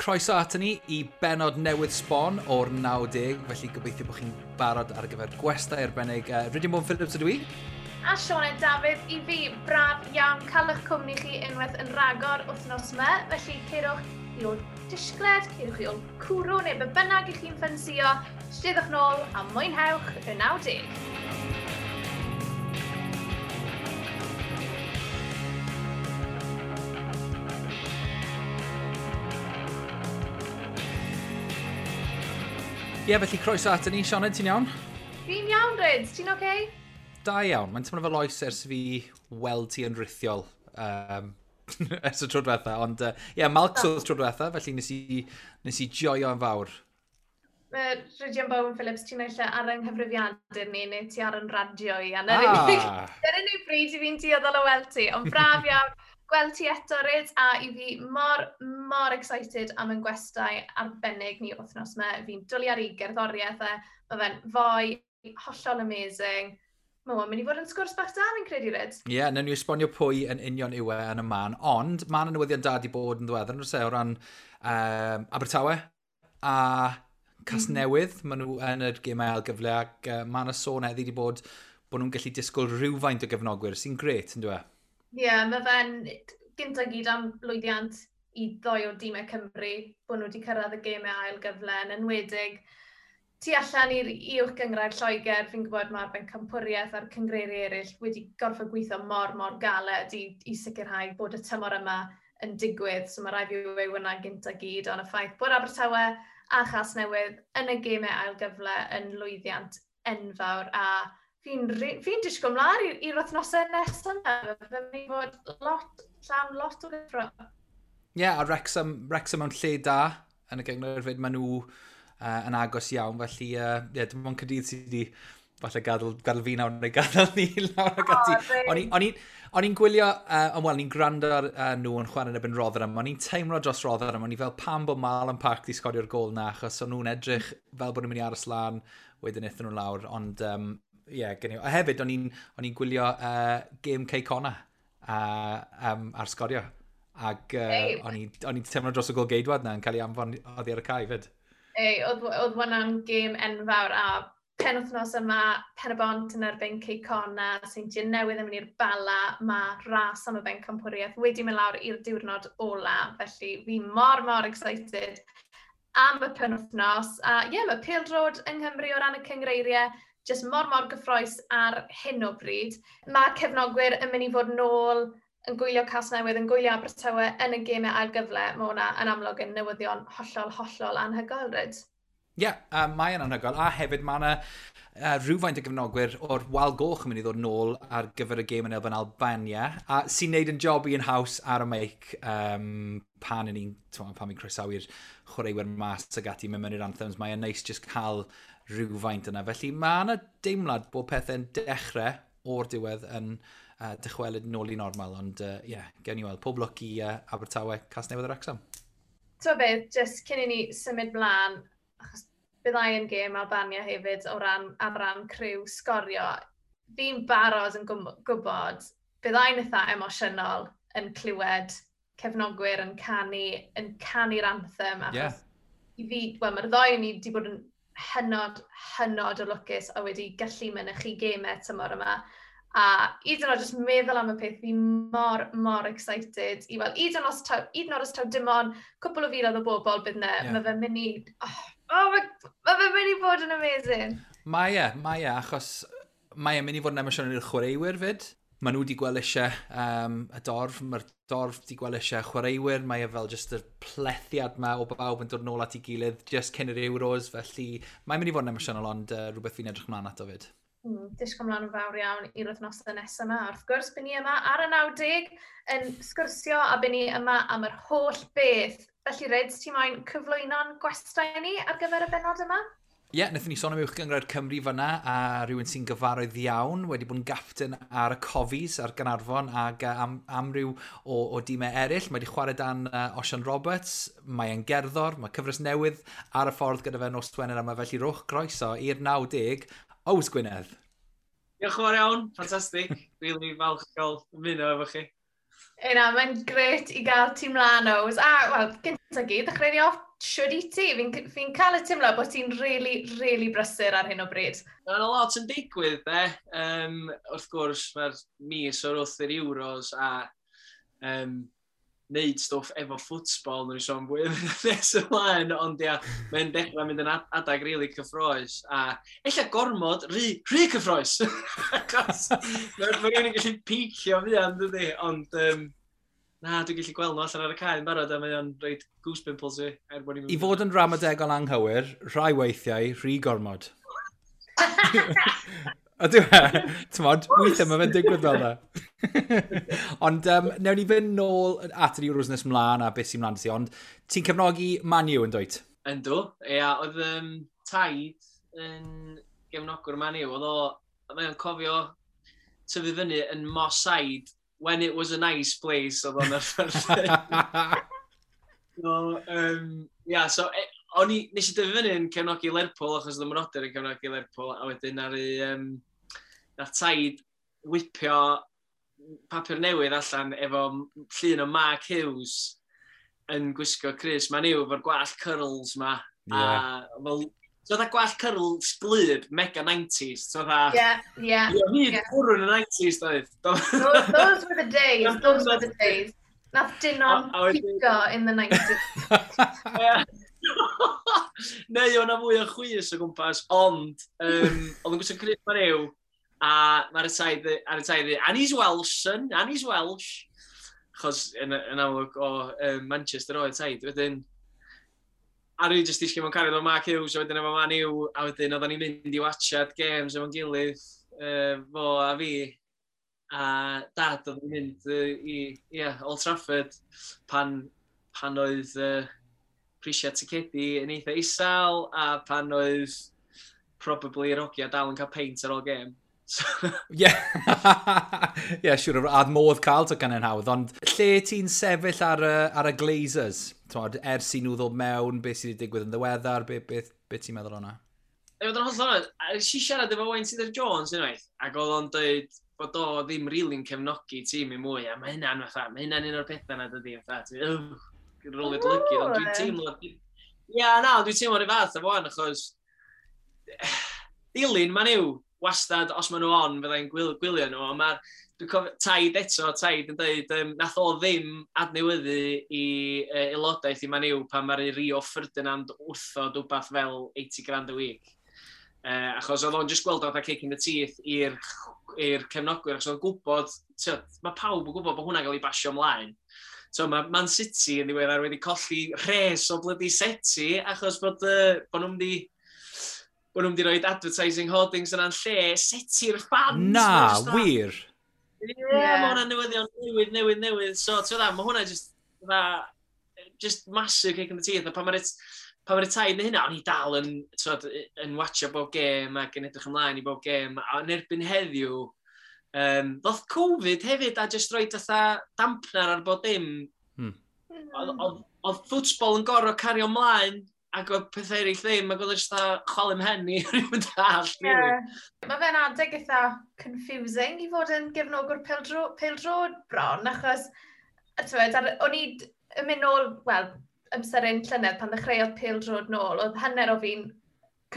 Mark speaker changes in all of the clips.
Speaker 1: Croeso ato ni i benod newydd sbon o'r 90, felly gobeithio bod chi'n barod ar gyfer gwestai arbennig. Rydyn Bowen Phillips ydw i.
Speaker 2: A Sioned Dafydd i fi, braf iawn cael eich cwmni chi unwaith yn rhagor wythnos yma. Felly cerwch i ôl disgled, cerwch i ôl cwrw neu be bynnag i chi'n ffansio, steddwch nôl a mwynhewch y 90.
Speaker 1: Ie, yeah, felly croeso ato ni. Sioned, ti'n iawn?
Speaker 2: Fi'n iawn, Ryd. Ti'n oce? Okay?
Speaker 1: Da iawn. Mae'n teimlo fel oes ers fi weld ti yn rithiol ers y tro diwetha. Ond, ie, yeah, Malcs oedd tro diwetha, felly nes i joio yn fawr.
Speaker 2: Rhydian Bowen Phillips, ti'n naill ar yng nghyfrifiadur ni, neu ti ar yn radio i. A Dyna unig bryd i fi'n dueddol o weld ti. Ond braf iawn gweld ti eto, Ryd, a i fi mor, mor excited am yn gwestai arbennig ni wythnos yma. Fi'n dwlu ar ei gerddoriaeth e. Mae fe'n foi hollol amazing. Mae o'n mynd i fod yn sgwrs bach da, fi'n credu, Ryd.
Speaker 1: Ie, yeah, newn ni esbonio pwy yn union yw e yn y man, ond mae yna newyddion da di bod yn ddiweddar, yn o ran Abertawe a Casnewydd. Maen nhw yn yr gemau ail gyfle ac mae yna sôn heddi di bod bod nhw'n gallu disgwyl rhywfaint o gefnogwyr, sy'n gret, yn dweud?
Speaker 2: Ie, yeah, mae fe'n gynta gyd am lwyddiant i ddoi o dîmau Cymru, bod nhw wedi cyrraedd y gemau ail gyfle, yn enwedig tu allan i'r uwch gynghrair Lloegr, fi'n gwybod mae'r bencampwriaeth a'r cyngreiriau eraill wedi gorfod gweithio mor, mor galed i sicrhau bod y tymor yma yn digwydd. So mae rhaid fi weud hwnna gynta gyd, ond y ffaith bod Abertawe a Chasnewydd yn y gemau ail gyfle yn lwyddiant enfawr, a fi'n disgwyl mlaen i'r wythnosau nesaf yma. Fe'n mynd i fod lot, llawn lot o gyffro.
Speaker 1: Ie, yeah, a Wrexham mewn lle da yn y gynghrair fyd, maen nhw yn agos iawn, felly yeah, dim ond Caerdydd sydd wedi falle gadael fi nawr neu gadael ni lawr ag ati. O'n i'n gwylio, ond wel, ni'n gwrando ar nhw yn chwarae yn erbyn Rotherham, o'n i'n teimlo dros Rotherham, o'n i fel pam bod Marlon Park di sgorio'r gol na, achos o'n nhw'n edrych fel bod nhw'n mynd i aros lan, wedyn aethon nhw lawr, ond yeah, gen i. A hefyd, o'n i'n gwylio gêm Cei Connah ar Sgorio. Ac o'n i'n teimlo dros y gol geidwad na yn cael ei anfon oddi ar y cae fyd.
Speaker 2: Ei, oedd hwnna'n gêm enfawr, a penwythnos yma, Pen-y-bont yn erbyn Cei Connah, Seintiau Newydd yn mynd i'r Bala, mae ras am y bencampwriaeth wedi mynd lawr i'r diwrnod ola, felly fi mor, mor excited am y penwythnos. A ie, yeah, mae pêl-droed yng Nghymru o ran y cyngreiriau jyst mor, mor gyffrous ar hyn o bryd. Mae cefnogwyr yn mynd i fod nôl yn gwylio Casnewydd, yn gwylio Abertawe yn y gemau ail gyfle. Mae hwnna yn amlwg yn newyddion hollol, hollol anhygoel, Ryd.
Speaker 1: Ie, yeah, mae yn anhygoel. A hefyd mae yna rhywfaint o gefnogwyr o'r Wal Goch yn mynd i ddod nôl ar gyfer y gêm yn erbyn Albania, a sy'n neud yn job i'n haws ar y meic pan ni'n croesawu'r chwaraewyr mas ag ati mewn i'r anthems. Mae'n neis just cael rhywfaint yna. Felly mae yna deimlad bod pethau'n dechrau o'r diwedd yn dychwelyd nôl i normal, ond ie, yeah, gewn ni weld. Pob lwc i Abertawe, Casnewydd a Wrexham.
Speaker 2: Ti'n beth, jyst cyn i ni symud mlaen, achos byddai yn gêm Albania hefyd o ran, ar ran criw Sgorio, fi'n barod yn gwybod byddai'n eitha emosiynol yn clywed cefnogwyr yn canu'r anthem, achos yeah. I fi, wel, mae'r ddoi ni wedi bod yn hynod, hynod o lwcus a wedi gallu mynychu gemau tymor yma. A hyd yn oed jyst meddwl am y peth, fi mor, mor excited i weld, hyd yn oed os taw dim ond cwpl o filoedd o bobl bydd yna, yeah. Mae fe'n mynd i, mae fe'n mynd i bod yn amazing.
Speaker 1: Mae e, achos mae e'n mynd i fod yn emosiynol i'r chwaraewyr fyd. Maen nhw wedi gweld eisiau y dorf, mae'r dorf wedi gweld eisiau chwaraewyr, mae e fel just y plethiad ma o bawb yn dod nôl at ei gilydd just cyn yr Euros, felly mae'n mynd i fod yn emosiynol, ond rhywbeth fi'n edrych ymlaen ato fyd.
Speaker 2: Disgwyl ymlaen yn fawr iawn i'r wythnosau nesaf yma. Wrth gwrs, byn ni yma ar y 90 yn sgwrsio a byn ni yma am yr holl beth. Felly, Ryd, ti moyn cyflwyno'n gwestai ni ar gyfer y bennod yma?
Speaker 1: Ie, yeah, wnaethon ni sôn am Uwch Gynghrair Cymru fyna, a rhywun sy'n gyfarwydd iawn, wedi bod yn gapten ar y Cofis, ar Gaernarfon, ac amryw o dîmau eraill. Mae wedi chwarae dan Osian Roberts, mae e'n gerddor, mae cyfres newydd ar y ffordd gyda fe nos Wener yma, felly rhowch groeso i'r 90, Ows Gwynedd.
Speaker 3: Diolch yn fawr iawn, ffantastig. Really falch cael ymuno efo chi.
Speaker 2: Ena, mae'n gret i gael ti mlaen, Ows. A, wel, gyntaf gyd, ddechrau ni off, siwr i ti. Fi'n cael y teimlo bod ti'n really, really brysur ar hyn o bryd.
Speaker 3: Mae'n lot yn digwydd, be. Wrth gwrs, mae'r mis o'r wrth yr Euros a neud stwff efo ffwtsbol, nhw'n sôn fwy nes ymlaen, ond ia, mae'n dechrau mynd yn adag rili cyffroes, a ella gormod, rhy cyffroes! Achos mae rhywun yn gallu picio fuan, dydy, ond na, dwi'n gallu gweld nhw allan ar y cae yn barod, a mae o'n rhoid goose pimples i. Er bod ni'n
Speaker 1: I fod yn ramadegol anghywir, rhai weithiau, rhy gormod. Ydyw e? T'mod, weithiau mae fe'n digwydd fel 'na. Ond newn ni fynd nôl at yr Euros nes mlaen a beth sy'n mlaen ti, ond ti'n cefnogi Man U yn dwyt?
Speaker 3: Yndw, ia, oedd taid yn gefnogwr Man U, oedd o, mae o'n cofio tyfu fyny yn Moss Side when it was a nice place, oedd o'n arfer. So, yeah, so, o'n i, nes i dyfu fyny yn cefnogi Lerpwl, achos oedd y mrodyr yn cefnogi Lerpwl, a wedyn nath taid whipio papur newydd allan efo llun o Mark Hughes yn gwisgo crys Man U efo'r gwallt curls ma. A fel, so fatha gwallt curls glib, mega 90s. So fatha, Ie, hyd bwrw yn y 90s, doedd.
Speaker 2: Those were the days, those were the days. Nath Dinon pico in the 90s.
Speaker 3: Ie. Neu o'na fwy o chwys o gwmpas, ond oedd yn gwisgo crys Man U, a mae'r taid ar y taid, "And he's Welsh, son, and he's Welsh." Achos yn amlwg o Manchester oedd taid. Wedyn, a rwy jyst disgyn mewn cariad o Mark Hughes, a wedyn efo Man U, a wedyn oedden ni'n mynd i watchad games efo'n gilydd, fo a fi, a dad oedd yn mynd i, yeah, Old Trafford pan oedd prisiau ticedi yn eitha isel, a pan oedd probably yr hogia dal yn cael peint ar ôl gêm. So,
Speaker 1: Ie, siwr, a modd cael tocynnau'n hawdd, ond lle ti'n sefyll ar y Glazers? T'mod, ers i nhw ddod mewn, beth sydd wedi digwydd yn ddiweddar, be ti'n meddwl o'na?
Speaker 3: I fod yn hollol onest, a nes i siarad efo Wayne Tudor Jones unwaith, ac oedd o'n dweud bod o ddim really'n cefnogi tîm i mwy, a mae hynna'n fatha, mae hynna'n un o'r pethau na dydi, fatha, ti'n rolio dy lygid, ond dwi'n teimlo. Ia, na, ond dwi'n teimlo rhyw fath efo wan, achos dilyn Man U, wastad, os maen nhw on, fyddai'n gwylio nhw, ond mae'r, dwi'n cofio, taid eto, taid yn dweud, nath o ddim adnewyddu i aelodaeth i Man U pan mae'r Rio Ferdinand wrthod wbath fel 80 grand a week. Achos oedd o'n just gweld o fatha kick in the teeth i'r cefnogwyr, achos oedd o'n gwybod, tyd, mae pawb yn gwybod bod hwnna'n cael ei basio ymlaen. So mae Man City yn ddiweddar wedi colli rhes o bloody seti achos bod nhw'n mynd i rhoi advertising hoardings yna'n lle seti'r fans.
Speaker 1: Na,
Speaker 3: Mae jyst
Speaker 1: wir.
Speaker 3: Ie, yeah, mae hwnna'n newyddion newydd, newydd, newydd. So, ti'n gwbod, mae hwnna just, fatha, just massive kick in the teeth. A pan mae'r taid neu hynna, o'n i dal yn, t'wod, yn watcha bob gêm ac yn edrych ymlaen i bob gêm. A yn erbyn heddiw, ddoth Covid hefyd a just roed fatha dampener ar bob dim. Oedd ffwtsbol yn gorfod cario ymlaen ac oedd pethau eraill ddim, ac oedd e jyst fatha chwalu mhen i rhywun dall, really.
Speaker 2: Yeah. Mae fe'n adeg eitha confusing i fod yn gefnogwr pêl-droed bron, achos, a t'wod, o'n i yn mynd nôl, wel, amser un llynedd pan ddechreuodd pêl-droed nôl, oedd hanner o fi'n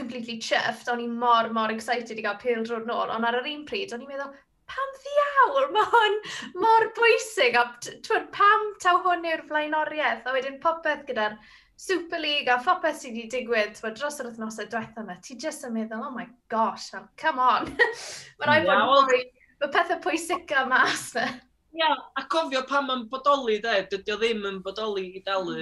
Speaker 2: completely chuffed, o'n i mor, mor excited i gael pêl-droed nôl, ond ar yr un pryd, o'n i'n meddwl, pam ddiawl, mae hwn mor bwysig, a t'wod, pam taw hwn yw'r flaenoriaeth, a wedyn popeth gyda'r Super League a phopeth sydd wedi digwydd, t'wod, dros yr wythnosau diwetha yma, ti jyst yn meddwl, "Oh my gosh, fel, come on." Mae rhaid bod mwy, mae pethau pwysica mas na.
Speaker 3: Ia, a cofio pam mae'n bodoli, de, dydy o ddim yn bodoli i dalu,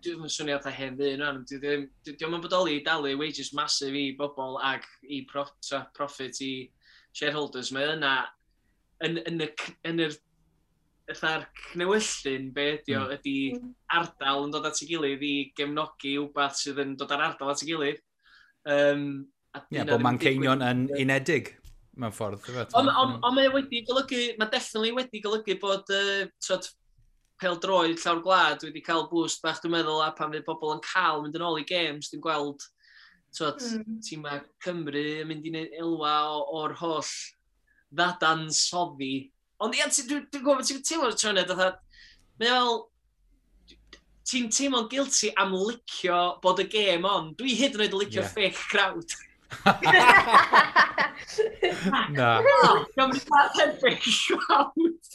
Speaker 3: dwi'n yn swnio fatha hen ddyn rwan, dydy o'm yn bodoli i dalu wages massive i bobl ag i profit i shareholders. Mae yna, yn yr fatha'r cnewyllyn, be ydi o, ydi ardal yn dod at ei gilydd i gefnogi wbath sydd yn dod ar ardal at ei gilydd. A
Speaker 1: Ie,
Speaker 3: dyna
Speaker 1: bod
Speaker 3: ddim yn
Speaker 1: Manceinion
Speaker 3: digwydd.
Speaker 1: yn unedig mewn ffordd, ife?
Speaker 3: Ond mae wedi golygu, mae definitely wedi golygu bod t'wod, pêl-droed llawr gwlad wedi cael boost bach, dwi'n meddwl, a pan fydd pobl yn cael mynd yn ôl i games, dwi'n gweld, t'wod, tîmau Cymru yn mynd i neud elwa o'r holl ddadansoddi Ond ia, dwi'n gwybod ti'n teimlo'r trynydd, fatha, mae fel, ti'n teimlo'n guilty am licio bod y gêm on. Dwi hyd yn oed yn licio fake crowd.
Speaker 1: Na.
Speaker 3: Gymru fake crowd.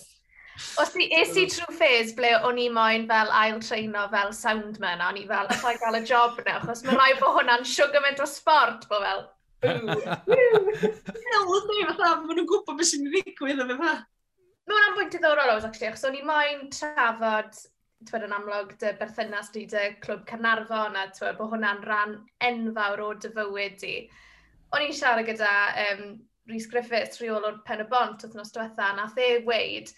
Speaker 2: Os ti, es i trwy phase ble o'n i moyn fel ail treino fel soundman, a o'n i fel, allai gael y job na, achos mae rhaid bod hwnna'n siwgr o sport, bod fel, boo,
Speaker 3: boo. Ydy, fatha, maen nhw'n gwybod beth sy'n ddigwydd a fatha.
Speaker 2: Mae hwnna'n bwynt diddorol, oes, actually, achos o'n i moyn trafod, twed, yn amlwg, dy berthynas di dy clwb Caernarfon, a twed, bod hwnna'n rhan enfawr o dy fywyd di. O'n i'n siarad gyda Rhys Griffiths, rheolwr Pen y Bont wythnos diwetha, nath e weud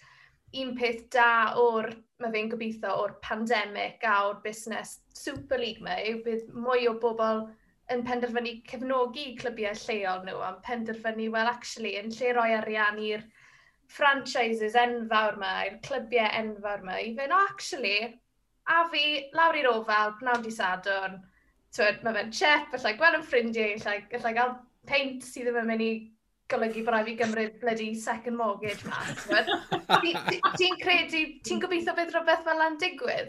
Speaker 2: un peth da o'r, mae fe'n gobeithio, o'r pandemig a o'r busnes Super League ma, yw bydd mwy o bobl yn penderfynu cefnogi clybiau lleol nhw, a'n penderfynu, well, actually, yn lle roi arian i'r franchises enfawr ma, i'r clybiau enfawr ma, i fynd, oh, actually, a fi lawr i'r Ofal, pnawn di Sadwrn, twyd, mae fe'n chep, allai gweld yn ffrindiau, allai gael peint sydd ddim yn mynd i golygu bod rhaid fi gymryd bloody second mortgage ma. Ti'n credu, ti'n gobeithio bydd rhywbeth fel yna'n digwydd?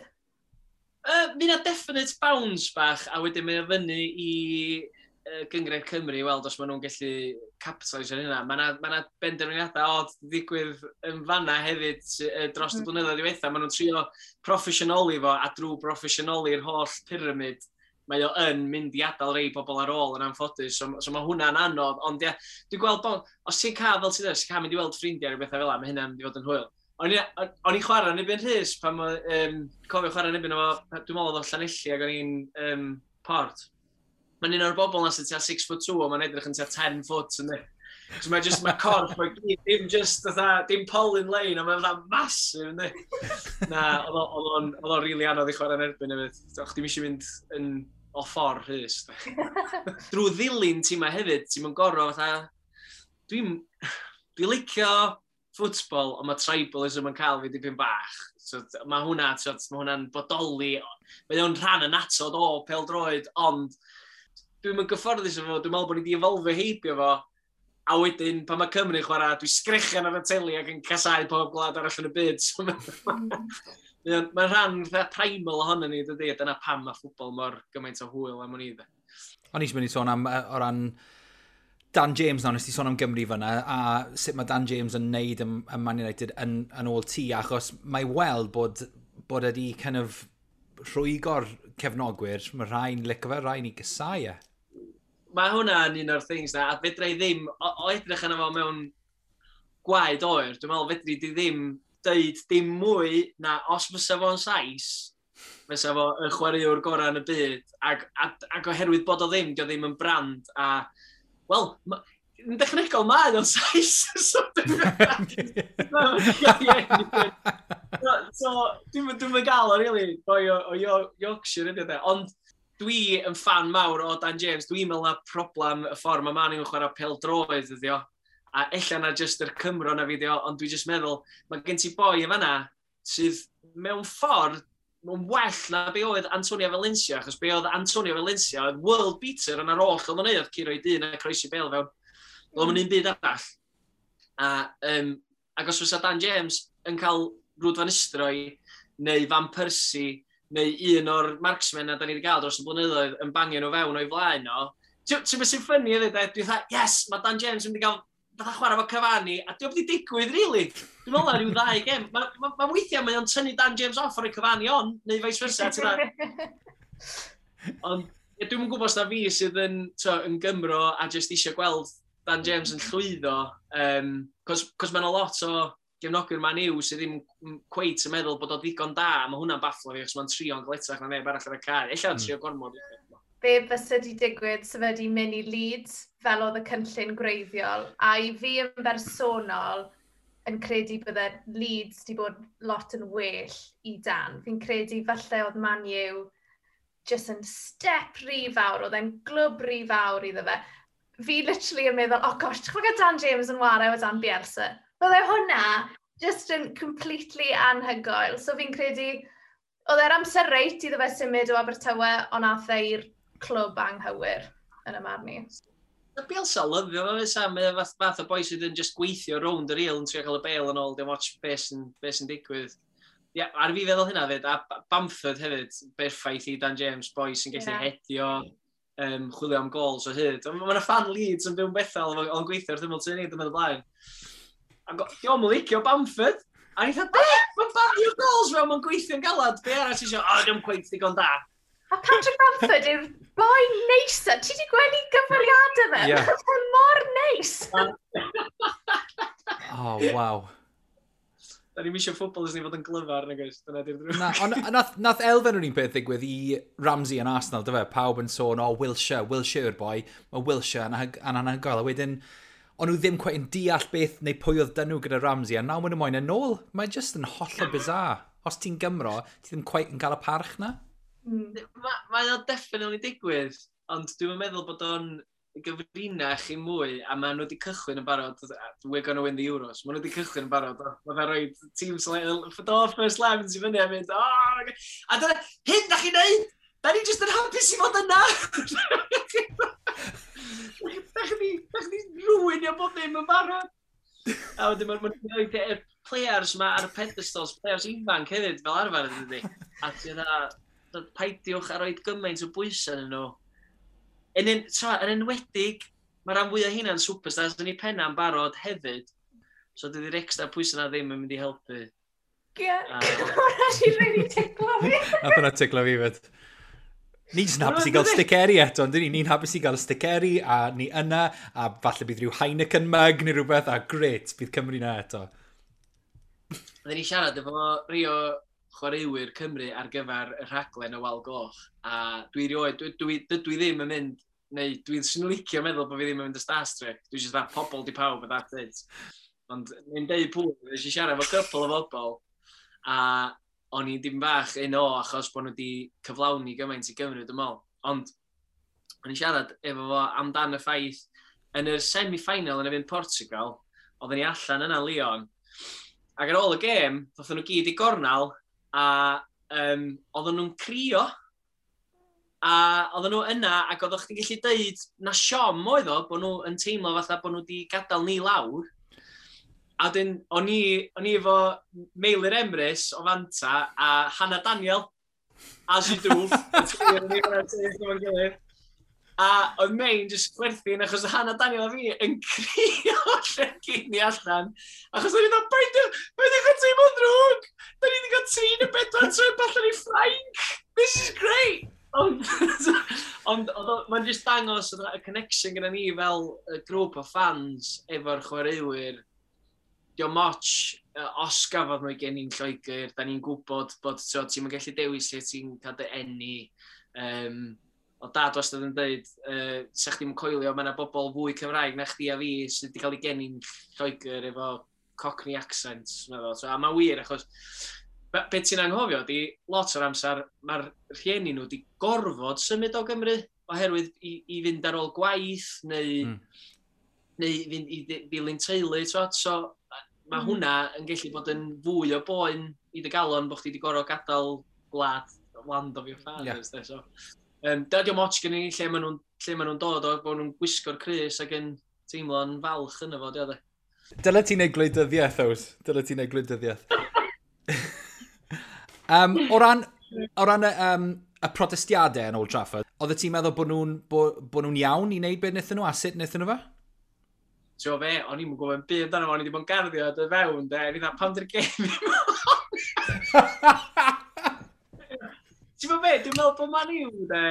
Speaker 3: Mi na definite bounce bach, a wedyn mae o fyny i Gynghrair Cymru i weld os maen nhw'n gallu capitalise ar hynna. Mae yna ma benderfyniadau od ddigwydd yn fanna hefyd dros y blynyddoedd diwetha. Maen nhw'n trio proffesiynoli fo, a drwy proffesiynoli'r holl pyramid, mae o yn mynd i adael rei bobl ar ôl yn anffodus, so mae hwnna'n anodd, ond ie, dwi'n gweld bod, os ti'n cael, fel ti'n dweud, os ti'n cael mynd i weld ffrindiau neu bethau fel 'na, mae hynna'n mynd i fod yn hwyl. O'n i'n chwarae yn erbyn Rhys, pan cofio chwarae yn erbyn o, dwi'n meddwl oedd o Llanelli ac o'n i'n Port. Mae'n un o'r bobl na sy'n tua 6 foot 2, ond mae'n edrych yn tua 10 foot, yndi. So mae just, mae corff, mae gyd, dim just, fatha, dim polyn lein, ond mae'n fatha massive, yndi. Na, oedd o'n rili anodd i chwarae yn erbyn hefyd. So, chdi'm eisiau mynd yn o ffordd Rhys. Drwy ddilyn tîmau hefyd, ti'n mynd gorau fatha. Dwi licio ffwtbol, ond mae tribalism yn cael fi dipyn bach. So, mae hwnna, so, mae hwnna'n bodoli. Mae o'n rhan yn atod o pêl-droed, ond dwi'n mynd gyfforddus efo fo, dwi'n meddwl bod ni wedi evolfio heibio fo, a wedyn, pan mae Cymru'n chwarae, dwi'n sgrechian ar y teli ac yn casau pob gwlad arall yn y byd. So, mae'n rhan fatha primal ohono ni, dydy, a dyna pam mae ffwtbol mor gymaint o hwyl am o'n i.
Speaker 1: O'n i eisiau mynd i sôn am, o ran Dan James nawr, nes ti sôn am Gymru fyna, a sut mae Dan James yn neud yn Man United yn ôl ti, achos mae weld bod wedi kind of rhwygo'r cefnogwyr, mae rhai'n licio fe, rhai'n ei gysau e.
Speaker 3: Mae hwnna yn un o'r things na, a fedra i ddim, o edrych yna fo mewn gwaed oer, dwi'n meddwl fedri di ddim deud dim mwy na os fysa fo'n Sais, fysa fo y chwaraewr gorau yn y byd, ac oherwydd bod o ddim, dio ddim yn brand, a, wel, yn dechnegol mae o'n Sais, so dwi'n gael o, really, boi o Yorkshire ydy o, de. Ond dwi yn fan mawr o Dan James, dwi'n meddwl na problem y ffordd mae Man U'n chwarae pêl-droed ydi o. A ella na jyst yr Cymro na fideo, ond dwi jyst meddwl, mae gen ti boi yn fanna sydd mewn ffordd yn well na be oedd Antonio Valencia, achos be oedd Antonio Valencia oedd world beater yn ar ôll oedd o'n neud, oedd curo i dyn a croesi bêl fewn. Oedd o'n un byd arall. Ac os fysa Dan James yn cael Ruud van Nistelrooy neu Van Persie neu un o'r marksmen na da ni wedi gael dros y blynyddoedd yn bangio nhw fewn o'i flaen o, ti'n beth sy'n funny hefyd, de? Dwi'n dweud, yes, mae Dan James yn mynd i gael fatha chwarae efo Cavani, a diolch wedi digwydd, really. Dwi'n meddwl na rhyw ddau gem. Ma weithiau mae o'n tynnu Dan James off ar y Cavani on, neu vice versa, ti'n dda. Ond ie, dwi'm yn gwybod os na fi sydd yn Gymro a jyst eisiau gweld Dan James yn llwyddo, cos mae yna lot o gefnogwyr Man U sydd ddim cweit yn meddwl bod o ddigon da, mae hwnna'n bafflo fi, achos mae'n trio'n gletach na neb arall ar y cae. Ella trio gormod.
Speaker 2: Be fysa di digwydd sef wedi mynd i Leeds fel oedd y cynllun gwreiddiol, a i fi yn bersonol yn credu bydde Leeds di bod lot yn well i Dan. Fi'n credu falle oedd Man U jyst yn step rhy fawr, oedd e'n glwb rhy fawr iddo fe. Fi literally yn meddwl, oh gosh, ti'n gwybod Dan James yn ware o dan Bielsa? Bydde hwnna just yn completely anhygoel. So fi'n credu, oedd e'r amser reit iddo fe symud o Abertawe, ond nath e i'r clwb anghywir yn y marn i.
Speaker 3: Bielsa lyfio fo, fysa. Mae o fath o boi sydd yn just gweithio rownd yr il yn trio cael y bêl yn ôl, dim ots beth sy'n be sy digwydd. Ia, yeah, ar fi feddwl hynna fyd, a Bamford hefyd, berffaith i Dan James, boi sy'n gallu hedio, chwilio am gols o hyd. Mae yna fan Leeds yn byw'n Bethel, o'n gweithio wrth ymyl tŷ ni, dwi'n meddwl blaen. A diolch yn licio Bamford. A ni'n dweud, be? Mae'n bangio gols fel mae'n gweithio'n galad. Be arall ti eisiau? O, diolch cweit ddigon da.
Speaker 2: A Patrick Bamford yw'r boi neisa. Ti wedi gweld i gyfweliadau fe? Yeah. Mae'n mor neis.
Speaker 1: Oh, waw.
Speaker 3: Da ni'n misio ffwbol ni fod yn glyfar, nag oes? Dyna di'r drwg.
Speaker 1: Na, ond nath elfen o'r un peth ddigwydd i Ramsey yn Arsenal, dyfe? Pawb yn sôn, o, oh, Wilshere, Wilshere yw'r boi. Mae Wilshere yn anhygoel. A wedyn, o'n nhw ddim cweit yn deall beth neu pwy oedd dyn nhw gyda Ramsey, a nawr maen nhw moyn yn ôl. Mae just yn hollol bizarre. Os ti'n Gymro, ti ddim cweit yn cael y parch na.
Speaker 3: Mae o definitely digwydd, ond dwi'n meddwl bod o'n gyfrinach i mwy, a maen nhw wedi cychwyn yn barod, we're gonna win the Euros, maen nhw wedi cychwyn yn barod, maen nhw'n rhoi team do first 11 i fyny a mynd, oh, a dyna, hyn da chi'n neud! Da ni jyst yn hapus i fod yna! Da chi di ruinio bob ddim yn barod! A wedyn maen nhw'n rhoi players ma ar y pedestals, players ifanc hefyd fel arfer ydy. A ti'n dda, paidiwch a roed gymaint o bwysau yn nhw. Yn, en, yn enwedig, mae rhan fwyaf hynna'n superstars yn ei penna'n barod hefyd. So dydy'r extra pwysau na ddim yn mynd i helpu.
Speaker 2: Ie, hwnna si really ticlo fi.
Speaker 1: Nath hwnna ticlo fi fyd. Ni'n jyst yn hapus i gael stickeri eto, ond ni? Ni'n hapus i gael stickeri, a ni yna, a falle bydd rhyw Heineken mug neu rhywbeth, a gret, bydd Cymru na eto.
Speaker 3: Oedden ni siarad efo Rio chwaraewyr Cymru ar gyfer y rhaglen y Wal Goch. A dwi rioed, dwi, dwi, dwi, ddim yn mynd, neu dwi'n sy'n licio meddwl bod fi ddim yn mynd y Star Trek. Dwi'n just that pobl di pawb, a that's it. Ond ni'n deud pwy, nes i siarad efo couple o bobl, a o'n i dim bach un o achos bod nhw wedi cyflawni gymaint i Gymru, dwi'n meddwl. Ond o'n i siarad efo fo amdan y ffaith yn y semi-final yn erbyn Portugal, oedden ni allan yna Lyon, ac ar ôl y gêm, ddothon nhw gyd i gornal, a oedden nhw'n crio. A oedden nhw yna, ac oeddech chdi'n gallu deud na siom oedd o, bod nhw yn teimlo fatha bod nhw wedi gadael ni lawr. A wedyn, o'n i efo Meilir Emrys o Fanta a Hannah Daniel, as you do. A oedd Mein just chwerthin achos oedd Hannah Daniel a fi yn crio lle gyn ni allan. Achos o'n i'n dweud, paid â teimlo'n ddrwg! Da ni wedi cael 3 neu 4 trip allan i Ffrainc! This is great! Ond mae'n just dangos y connection gyda ni fel y grŵp o fans efo'r chwaraewyr. Diolch moch os gafodd nhw gen i'n Lloegr, da ni'n gwybod bod ti'n gallu dewis lle ti'n cael dy eni. O dad wastad yn dweud, sa chdi'm yn coelio, mae yna bobl fwy Cymraeg na chdi a fi sydd wedi cael ei geni'n Lloegr efo Cockney accent. Meddwl. So, a mae'n wir, achos be ti'n anghofio di, lot o'r amser, mae'r rhieni nhw wedi gorfod symud o Gymru oherwydd i fynd ar ôl gwaith neu, neu fynd i ddilyn teulu. So, mae hwnna yn gallu bod yn fwy o boen i dy galon bod chdi wedi gorfod gadael gwlad, land of your fathers. Yeah. So, dydy o'm ots gen i lle maen nhw'n dod o, bod nhw'n gwisgo'r crys ac yn teimlo'n falch yna fo, diolch.
Speaker 1: Dyle ti'n neud gwleidyddiaeth, Ows. Dyle ti'n neud gwleidyddiaeth. O ran y protestiadau yn Old Trafford, oedd ti'n meddwl bod nhw'n iawn i wneud beth wnaethon nhw a sut wnaethon nhw fe?
Speaker 3: Ti'n fe, o'n i'n gwybod yn byd amdano fo, o'n i wedi bod yn garddio dy fewn, de, o'n i'n dweud, pam dy'r gêm i? Ti'n gwybod be, dwi'n meddwl bod Man U, de,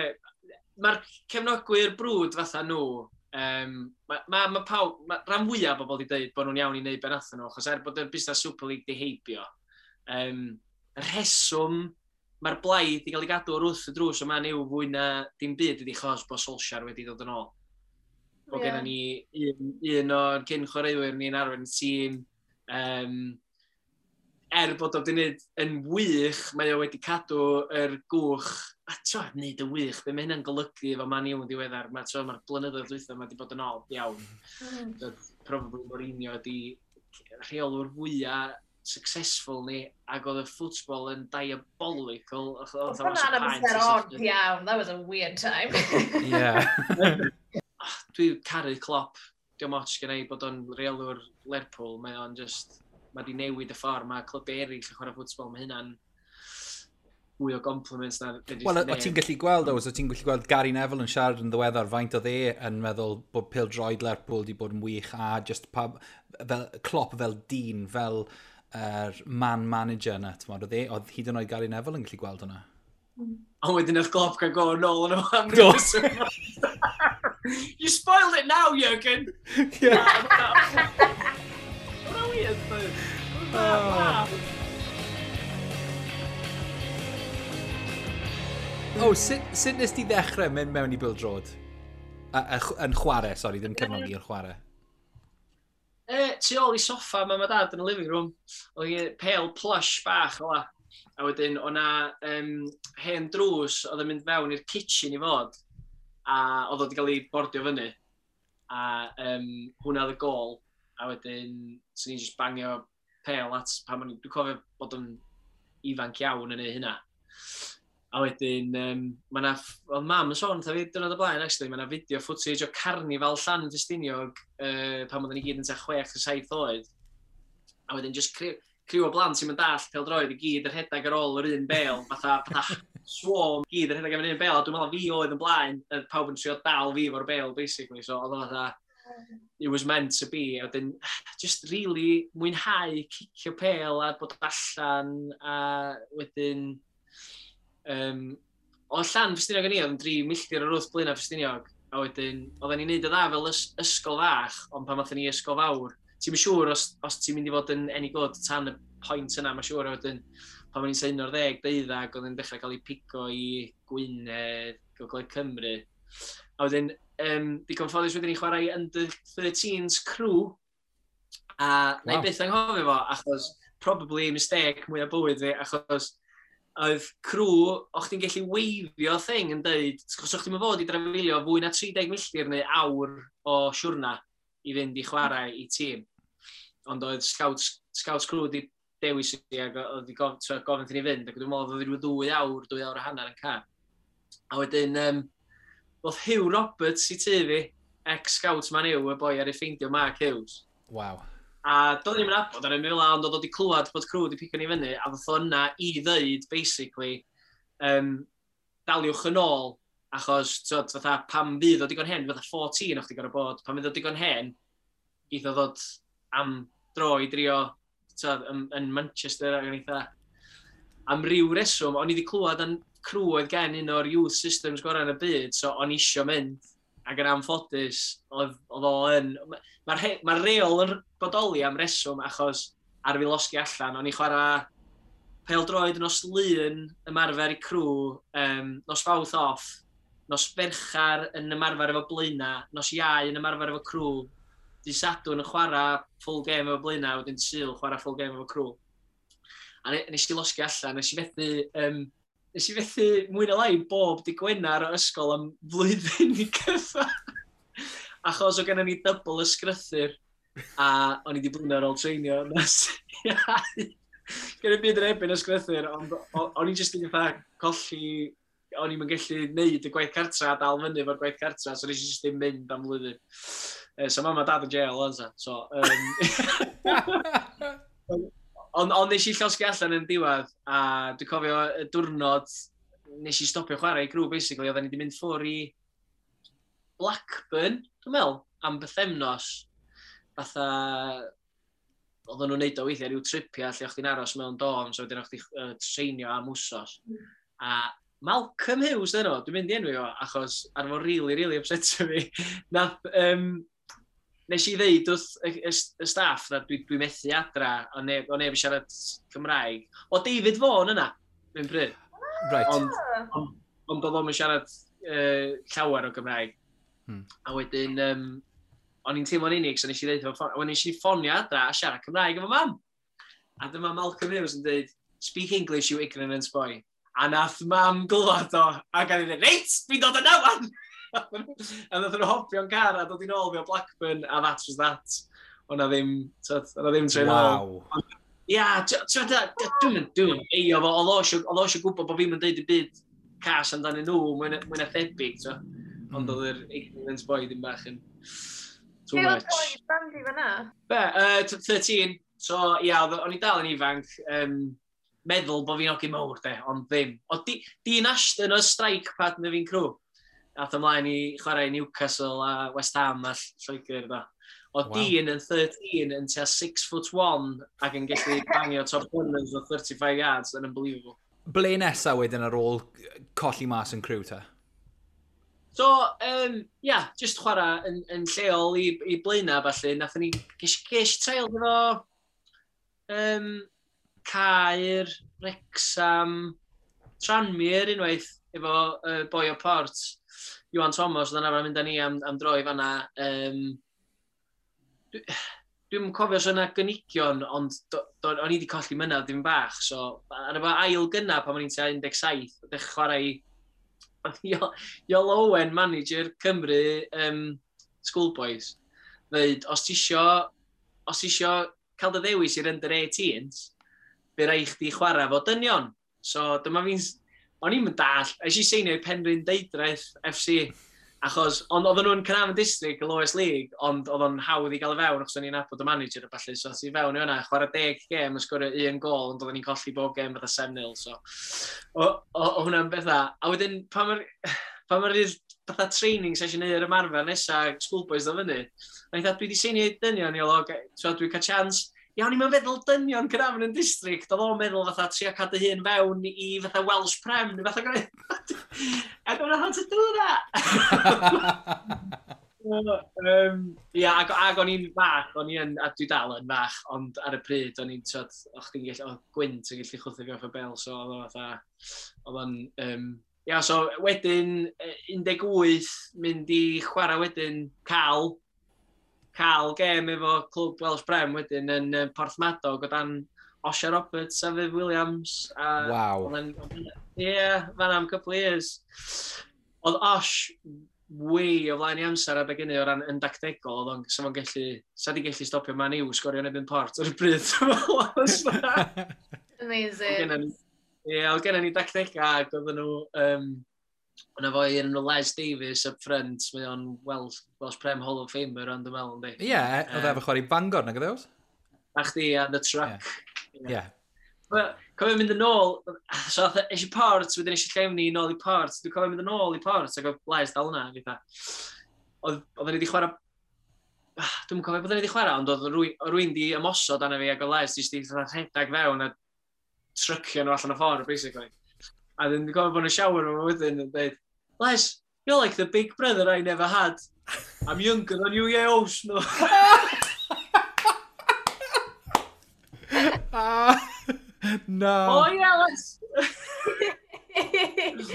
Speaker 3: mae'r cefnogwyr brwd fatha nhw, ma pawb, ma rhan fwyaf o bobl wedi dweud bod nhw'n iawn i wneud be nathon nhw, achos er bod y busnes Super League di heibio, y rheswm mae'r blaid i gael ei gadw wrth y drws o Man U fwy na dim byd ydi chos bod Solskjaer wedi dod yn ôl. Bod gennym ni un o'r cyn chwaraewyr ni'n arwain y tîm. Er bod o wedi gwneud yn wych, mae o wedi cadw yr gwch. A t'o, wneud yn wych, be mae hynna'n golygu efo Man U yn ddiweddar? Mae'r blynyddoedd dwytha mae wedi bod yn od iawn. So, probably Mourinho ydi rheolwr fwyaf successful ni, ac oedd y football yn diabolical.
Speaker 2: Oedd hwnna'n amser odd iawn. That was a weird time.
Speaker 1: Yeah.
Speaker 3: Dwi caru Klopp. Diolch ots gen i bod o'n reolwr Lerpwl. Mae o'n just... Mae di newid y ffordd. Mae clybau eraill yn chwarae ffwtbol. Mae hynna'n mwy o compliments na...
Speaker 1: Wel, o ti'n gallu gweld, o ti'n gallu gweld Gary Neville yn siarad yn ddiweddar faint oedd e yn meddwl bod pêl-droed Lerpwl wedi bod yn wych a just pa, fel, Klopp fel dyn, fel man manager yna, ti'n oedd e, oedd hyd yn oed Gary Neville yn gallu gweld hwnna.
Speaker 3: Ond wedyn oedd Klopp cael go nôl yn am ryw. You spoiled it now, Jürgen! Yeah. Hwna weird, though. Wow.
Speaker 1: Oh, sut nes ti ddechrau mynd mewn i bêl-droed? Yn chwarae, sori, ddim cefnogi, yn chwarae.
Speaker 3: Tu ôl i soffa mam a dad yn y living room, oedd hi pêl plush bach o la. A wedyn, o'na hen drws oedd yn mynd fewn i'r kitchen i fod, a oedd o wedi cael ei bordio fyny. A hwnna oedd y gol, a wedyn, swn i'n just bangio pêl at, pan o'n dwi'n cofio bod yn ifanc iawn yn ei hynna. A wedyn, mae na, oedd mam yn sôn wrtha fi diwrnod o blaen, actually, mae na video footage o carnifal Llan Ffestiniog pan oedden ni gyd yn tua 6 a 7 oed. A wedyn, just criw o blant sy'n mynd dall pêl-droed i gyd yn rhedeg ar ôl yr un bêl, fatha swarm, gyd yn rhedeg am yr un bêl, a dwi'n meddwl fi oedd yn blaen, a pawb yn trio dal fi fo'r bêl, basically, so oedd o fatha, it was meant to be, a wedyn, just really mwynhau cicio pêl a bod allan, a wedyn, o Llan Ffestiniog yn ni, oedd yn 3 milltir o'r wrth Blaenau Ffestiniog, a wedyn, oedden ni'n neud y dda fel ysgol fach, ond pan nathon ni ysgol fawr, ti'n siŵr os ti'n mynd i fod yn any good tan y pwynt yna, mae'n siŵr, a wedyn, pan o'n i'n 11, 12, oedd yn dechrau cael ei pigo i Gwynedd, Gogledd Cymru. A wedyn, digon ffodus wedyn i chwarae i Under 13s Crewe, a na i byth anghofio fo, achos probably mistake mwy o bywyd fi, achos oedd Crewe, o'ch chdi'n gallu weifio thing yn deud, achos o'ch chdi'n fod i drafeilio fwy na 30 milltir neu awr o siwrna i fynd i chwarae i tîm. Ond oedd Scouts Crewe di dewis i ac oedd di gofyn i ni fynd, ac dwi'n meddwl oedd rhyw 2 awr, 2 awr a hanner yn car. A wedyn, oedd Hugh Roberts i tŷ fi, ex-scout Man U, y boi ar ei ffeindio Mark Hughes. A doedd ni'n nabod ar y fel, ond oedd o wedi clywed bod Crewe wedi pigo ni fyny, a ddoth o yna i ddeud, basically, daliwch yn ôl, achos, tyd, fatha, pam fydd o digon hen, fatha 14 o'ch di gorfod bod, pan fydd o digon hen, geith o ddod am dro i drio, tyd, yn Manchester, ac yn eitha, am ryw reswm, o'n i wedi clywed yn Crewe oedd gen un o'r youth systems gorau yn y byd, so o'n i isio mynd, ac yn anffodus, oedd o yn... Mae'r ma reol yn bodoli am reswm, achos ar fi losgi allan, o'n i chwarae pêl-droed nos Lun ymarfer i Crewe, nos Fawrth off, nos Ferchar yn ymarfer efo Blaena, nos Iau yn ymarfer efo Crewe, dydd Sadwrn yn chwarae full game efo Blaena, wedyn Sul chwarae full game efo Crewe. A nes i losgi allan, nes i fethu mwy na lai bob dydd Gwener o ysgol am flwyddyn i gyfa. Achos o gennym ni double ysgrythyr a o'n i wedi blino ar ôl treinio nos Iau. Gen i byd yn erbyn ysgrythyr, ond o'n i jyst yn fatha colli, o'n i'n gallu neud y gwaith cartra a dal fyny efo'r gwaith cartra, so nes i jyst ddim mynd am flwyddyn. So mam a dad yn jail, o'n sa. So, ond nes i llosgi allan yn diwedd, a dwi'n cofio y diwrnod nes i stopio chwarae i Crewe, basically, oedden ni wedi mynd ffwr i Blackburn, dwi'n meddwl, am bythefnos. Fatha, oedden nhw'n neud o weithiau rhyw tripia lle o'ch chdi'n aros mewn dorm, so wedyn o'ch chdi treinio am wsos. A Malcolm Hughes dyn nhw, dwi'n mynd i enwi o, achos ar fo really, really upset fi. Nath, nes i ddeud wrth y staff na dwi methu adra, o neb yn siarad Cymraeg. O David Vaughan yna, dwi'n pryd. Ond oedd o'n siarad llawer o Gymraeg. A wedyn, o'n i'n teimlo'n unig, so nes i ddeud efo ffon, wedyn nes i ffonio adra a siarad Cymraeg efo mam. A dyma Malcolm Hughes yn dweud, "Speak English, you ignorant boy." A nath mam glwad o, a gan i ddweud, "Reit, fi'n dod yna wan!" A nath nhw hopio'n car a dod i'n ôl fi o Blackburn, a that was that. O'na ddim, tyd, o'na ddim trên ôl. Ia, dwi'n eio fo, oedd o eisiau gwybod bod fi'n deud y byd cas amdanyn nhw, mwy na thebyg, t'o. Ond oedd yr ignorance boy ddim bach yn too
Speaker 2: Be oedd
Speaker 3: much.
Speaker 2: oed Bandy fyna?
Speaker 3: Be, 13. So, ia, o'n i dal yn ifanc, meddwl bod fi'n hogyn mawr, de, ond ddim. O, Dean Ashton oedd strike partner fi'n Crewe. Ath ymlaen i chwarae i Newcastle a West Ham a Lloegr, da. O Dean yn 13 yn tua 6'1" ac yn gallu bangio top corners o 35 yards, yn unbelievable.
Speaker 1: Ble nesa wedyn ar ôl colli mas yn Crewe ta?
Speaker 3: So, yeah, just chwarae yn lleol i Blaenau, falle. Nathon ni, ges trial efo Caer, Wrexham, Tranmere unwaith, efo boi o Port, Iwan Thomas, oedd yna arfer mynd â ni am dro i fanna. Dwi'm yn cofio os yna gynigion, ond o'n i wedi colli mynadd dim bach, so ar efo ail gynna pan o'n i'n tua 17, dechrau chwarae i Iolo Owen, manager Cymru Schoolboys, dweud, os ti isio cael dy ddewis i'r under 18s, fe rai chdi chwarae fo dynion. So dyma fi'n... O'n i'n dall, es i seinio i Penrhyn Deudraeth FC, achos, ond oedden nhw'n Caernarfon District, y lowest league, ond oedd o'n hawdd i gael y fewn, achos o'n i'n nabod y manager a ballu, so i fewn i hwnna, chwarae 10 gêm, yn sgorio un gol, ond oedden ni'n colli bob gêm fatha 7-0, so o hwnna'n bethau. A wedyn, pan mae'r fatha training session neu'r ymarfer nesa, Schoolboys ddod fyny, o'n i'n dweud, "Dwi wedi seinio i dynion, Iolo, so dwi'n cael chance." Iawn, i'n meddwl dynion Caernarfon yn district, oedd o'n meddwl fatha trio cadw hun fewn i fatha Welsh Prem, neu fatha gwneud. I don't know how to do that! Ia, ac o'n i'n fach, o'n i yn, a dwi dal yn fach, ond ar y pryd o'n i'n, tyd, o'ch chdi'n gallu, oedd gwynt yn gallu chwthu fi off y bel, so oedd o fatha, oedd o'n, ia, so wedyn, 18, mynd i chwarae wedyn, cael gêm efo clwb Welsh Prem wedyn yn Porthmadog o dan Osher Roberts a Viv Williams. A Ie, fan am couple of years. Oedd Osh way o flaen i amser adeg hynny o ran yn dactegol, oedd o'n, sa fo'n gallu, sa di gallu stopio Man U sgorio yn erbyn Port ar y bryd.
Speaker 2: Amazing.
Speaker 3: Ie, oedd gennym ni dactega ac oedden nhw, yna fo un nhw Les Davies up front, mae o'n Welsh Prem Hall of Famer ond dwi'n meddwl, yndi.
Speaker 1: Ie, yeah, oedd efo chwarae i Bangor, nag oedd e?
Speaker 3: A chdi a The Truck.
Speaker 1: Ie. Yeah.
Speaker 3: Wel, cofio mynd yn ôl, so ath eisiau Port, wedyn eisiau Llefni nôl i Port, dwi'n cofio mynd yn ôl i Port, ac oedd Les dal yna, fatha. Oedden ni wedi chwarae, ah, dwi'm yn cofio beth o'n ni wedi chwarae, ond oedd rwy'n di ymosod arna fi ac oedd Les di fatha rhedeg fewn a trycio nhw allan o ffordd, basically. A dwi'n cofio bod yn shower nhw wedyn yn dweud, "Les, you're like the big brother I never had. I'm younger than you, yeah, no."
Speaker 1: Ah, no.
Speaker 3: Oh yeah, Les!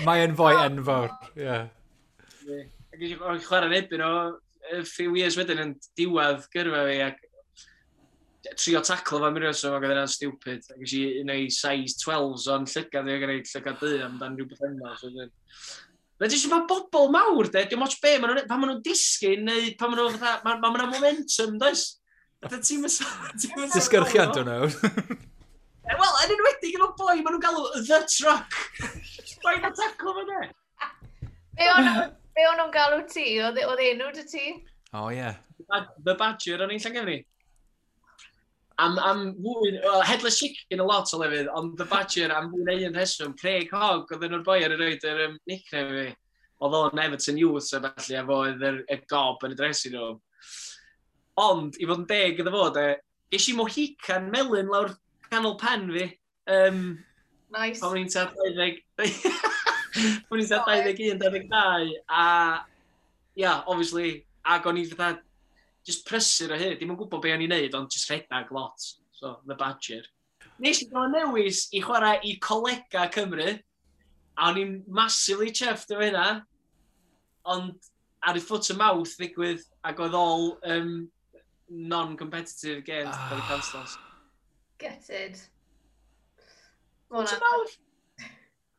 Speaker 1: Mae e'n foi enfawr, ie. Yeah.
Speaker 3: Ac eisiau chwarae yn erbyn o a few years wedyn yn diwedd gyrfa fi ac trio taclo fo am ryw reswm ac oedd hynna'n stupid. Ac eisiau un o'i size 12s o'n llygad fi ac yn ei llygad du amdan rhyw beth yna. So, Mae jyst mae bobl mawr, de, dim ots be, ma nhw'n, pan maen nhw'n disgyn, neu pan maen nhw fatha, mae ma, ma momentum, does? Fatha ti'n
Speaker 1: Disgyrchiant o'n nhw.
Speaker 3: Wel, yn enwedig efo boi, maen nhw'n galw The Truck. Boi'n taclo fo, de.
Speaker 2: Be o'n nhw'n galw ti? Oedd enw dy ti?
Speaker 1: O, ie.
Speaker 3: The Badger o'n i'n Llangefni. Am fwy, well, Headless Chicken a lot o lefydd, ond The Badger am fwy na un rheswm. Craig Hogg, oedd nhw'r boi ar y roed yr nickname fi. Oedd o'n Everton Youth a felly, a fo oedd y gob yn y dressing room. Ond, i fod yn deg iddo fo, de, ges i mohican melyn lawr canol pen fi.
Speaker 2: Nice.
Speaker 3: Pan o'n i'n tua 20... pan o'n i'n tua 21, 22, a... Yeah, obviously, ac o'n i fatha just prysur o hyd, dim yn gwybod be o'n i'n neud, ond just rhedag lot. So, The Badger. Nes i gael newis i chwarae i Colega Cymru, a o'n i'n massively chuffed efo hynna, ond ar y foot and mouth ddigwydd, ac oedd all non-competitive games ah. cael eu cancelo.
Speaker 2: Gutted.
Speaker 3: Foot and mouth!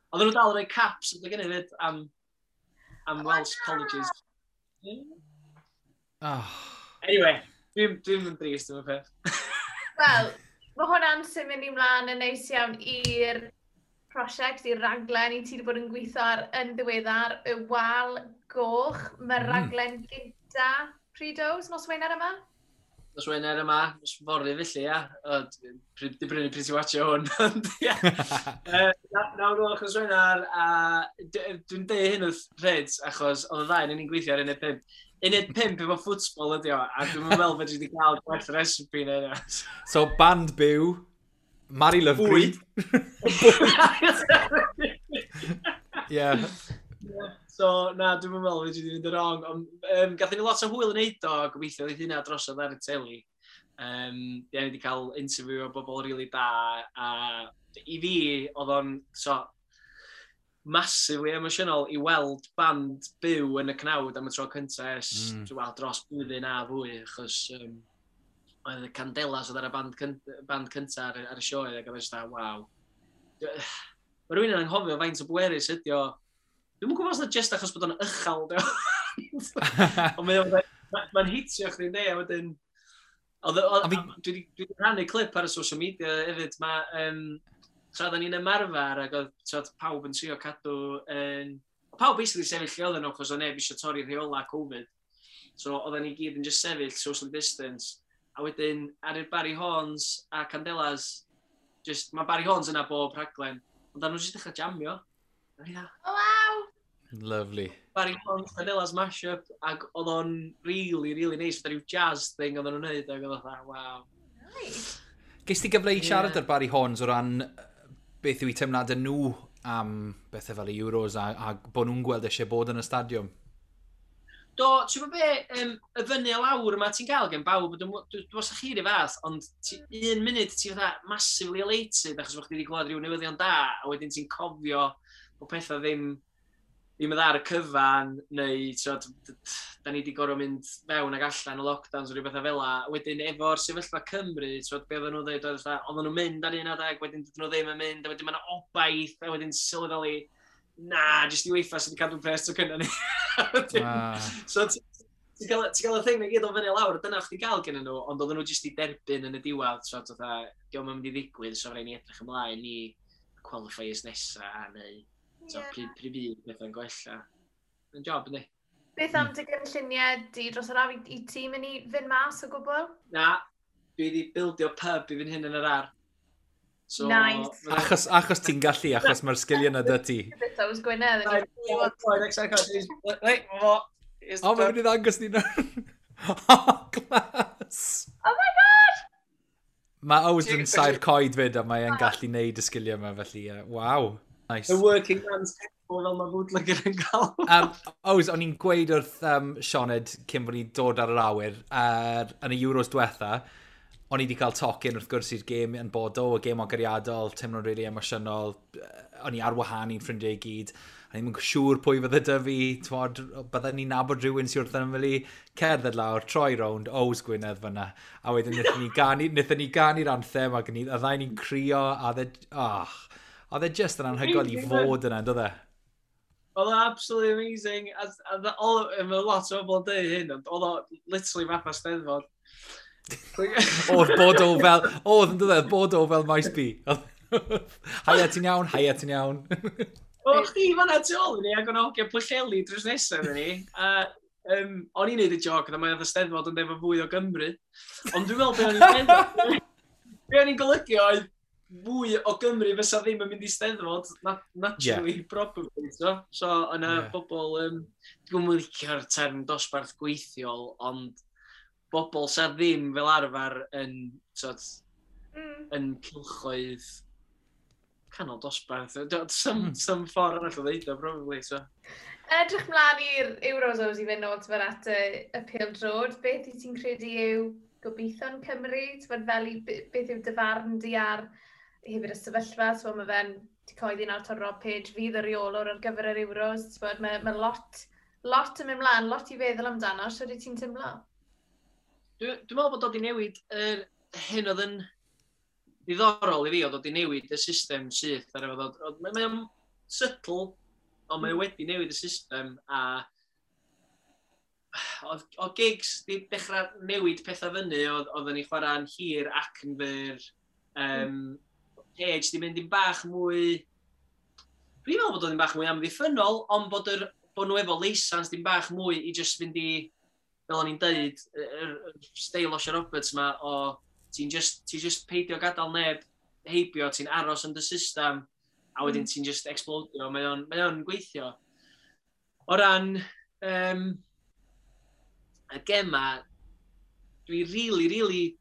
Speaker 3: Oedden nhw dal yn rhoi caps yn gynnu fyd am Welsh colleges.
Speaker 1: Oh.
Speaker 3: Anyway, dwi'n yn drist am y peth.
Speaker 2: Wel, mae hwnna'n symud ni mlaen yn neis iawn i'r prosiect, i raglen i ti wedi bod yn gweithio ar yn ddiweddar, y Wal Goch. Mae'r raglen gynta pryd oes, nos Wener yma?
Speaker 3: Nos Wener yma, nos fory felly, ia. Di brynu pryd ti'n watcho hwn. Ond, ia. 9 gloch nos Wener, a dwi'n deud hyn wrth Reds, achos oedd y ddau yn ni'n gweithio ar uned 5. Uned 5 efo ffwtbol ydi o, a dwi'n meddwl fedri di gael gwell recipe neu hynna.
Speaker 1: So, band byw, Mari Lovgreen. Yeah.
Speaker 3: So, na, dwi'n meddwl fedri di fynd yn wrong. Ond gathon ni lot o hwyl yn neud o, a gobeithio oedd hynna drosodd ar y teli. Ie, ni wedi cael interview o bobl rili really da, a i fi, oedd o'n so, massively emosiynol i weld band byw yn y cnawd am y tro cyntaf ers well, dros blwyddyn a fwy, achos oedd y Candelas oedd ar y band cyntaf ar y sioe, ac oedd e just, waw. Mae rhywun yn anghofio faint o bwerus ydi o. Dwi'm yn gwybod os na just achos bod o'n uchel, dio. Ond mae'n hitio chdi, ne, a wedyn... Dwi wedi rhannu clip ar y social media hefyd. Mae, tra oedden ni'n ymarfer ac oedd, t'wod, pawb yn trio cadw yn... Pawb basically sefyll lle oedden nhw, achos oedd neb eisiau torri rheola Covid. So oedden ni gyd yn just sefyll, social distance. A wedyn, ar i'r Barry Horns a Candelas, just, mae Barry Horns yna bob rhaglen, ond nhw jyst dechrau jamio. A ni fatha,
Speaker 2: Oh, waw!
Speaker 1: Lovely.
Speaker 3: Barry Horns, Candelas mashup, ac oedd o'n really, really nice, fatha rhyw jazz thing oedden nhw'n neud, ac oedd o'n fatha, wow.
Speaker 2: Nice.
Speaker 1: Ges ti gyfle i siarad ar Barry Horns o ran beth yw eu teimladau nhw am bethau fel y Euros a bod nhw'n gweld eisiau bod yn y stadiwm?
Speaker 3: Do, ti'n gwybod be, y fyny a lawr yma ti'n gael gen bawb, dwi'n os chi rhyw fath, ond ti, un munud ti'n fatha massively elated achos bod chdi wedi clywed rhyw newyddion da, a wedyn ti'n cofio bod pethau ddim yn dda ar y cyfan, neu t'wod, da ni wedi gorfod mynd fewn ac allan o lockdowns o rhyw bethau fel la. Wedyn efo'r sefyllfa Cymru, t'wod, be oedden nhw'n dweud, oedd fatha, oedden nhw'n mynd ar un adeg, wedyn dydyn nhw ddim yn mynd, a wedyn mae yna obaith, a wedyn sylweddoli, na, jyst i UEFA sydd wedi cadw pres to cynna ni. So ti'n cael y thing na gyd o fyny lawr, dyna chdi gael gen nhw, ond oedden nhw jyst i derbyn yn y diwedd, so fatha, diolch yn mynd i ddigwydd, so rhaid ni edrych ymlaen i qualifiers nesa, neu so, pryd fydd pethau'n gwella. Yn job, yndi?
Speaker 2: Beth am dy gynlluniau di dros yr haf i ti mynd i fynd mas o gwbl?
Speaker 3: Na, dwi wedi bildio pub i fynd hyn yn yr ar. So,
Speaker 2: Nice.
Speaker 1: Achos ti'n gallu, achos mae'r sgiliau yna dy ti.
Speaker 2: Beth Ows Gwynedd.
Speaker 3: Right, right, fo. Here's the
Speaker 1: O, mae'n
Speaker 3: pub.
Speaker 1: mynd i ddangos ni nawr. Oh, class!
Speaker 2: Oh my God!
Speaker 1: Mae Ows yn saer coed fyd a mae'n gallu neud y sgiliau yma, felly, waw. Nice.
Speaker 3: The working man's temple fel mae bootlegger yn gael.
Speaker 1: Ows, o'n i'n gweud wrth Sioned cyn bod ni'n dod ar yr awyr, yn y Euros diwetha, o'n i wedi cael tocyn wrth gwrs i'r gêm yn Bordeaux, y gêm agoriadol, teimlo'n really emosiynol, o'n i ar wahân i'n ffrindiau i gyd, a ni'n siŵr pwy fydde dy fi, t'mod, bydden ni'n nabod rhywun sy'n wrth ymyl i, cerdded lawr, troi rownd, Ows Gwynedd fyna, a wedyn wnaethon ni ganu'r anthem, ac a ddau ni'n crio, a dde, oh, oedd e just yn anhygoel i fod yna, on'd oedd e?
Speaker 3: Oedd o absolutely amazing. A mae lot o bobl yn dweud hyn, ond oedd o literally fatha steddfod.
Speaker 1: Oedd Bordeaux fel, oedd yn dod, Bordeaux fel Maes B. Haia, ti'n iawn? Haia, ti'n iawn?
Speaker 3: O, chdi fanna tu ôl i ni, ac o'n hogia Pwllheli drws nesaf i ni. A o'n i'n neud y joc, a mae'n steddfod yn efo fwy o Gymru. Ond dwi'n meddwl be o'n i'n meddwl. Be o'n i'n golygu oedd fwy o Gymru fysa ddim yn mynd i steddfod, naturally, probably. So yna bobl, dwi'n mynd licio'r term dosbarth gweithiol, ond bobl sa ddim fel arfer yn, sort, yn cylchoedd canol dosbarth. Some ffordd arall o ddeud o, probably. So.
Speaker 2: Edrych mlaen i'r Euros, Ows, i fynd nôl t'mod at y pêl-droed. Beth i ti'n credu yw gobeithion Cymru? T'mod fel i, beth yw dy farn di ar hefyd y sefyllfa? So mae fe'n di coeddi nawr taw Rob Page fydd y reolwr ar gyfer yr Euros. T'mod, mae lot yn mynd mlaen, lot i feddwl amdano. Sut wyt ti'n teimlo?
Speaker 3: Dwi'n meddwl bod o wedi newid yr hyn oedd yn ddiddorol i fi, oedd o wedi newid y system syth ar efo ddod. Mae o'n subtle, ond mae o wedi newid y system a oedd Giggs di dechrau newid pethau fyny, oedden ni chwarae'n hir ac yn fyr. Page di mynd yn bach mwy Dwi'n meddwl bod o'n bach mwy amddiffynol, ond bod nhw efo leisans dim bach mwy i just fynd i, fel o'n i'n deud, yr steil Osian Roberts ma o ti'n just peidio gadael neb heibio, ti'n aros yn dy system, a wedyn ti'n just explodio, mae o'n gweithio. O ran y gema, dwi really, really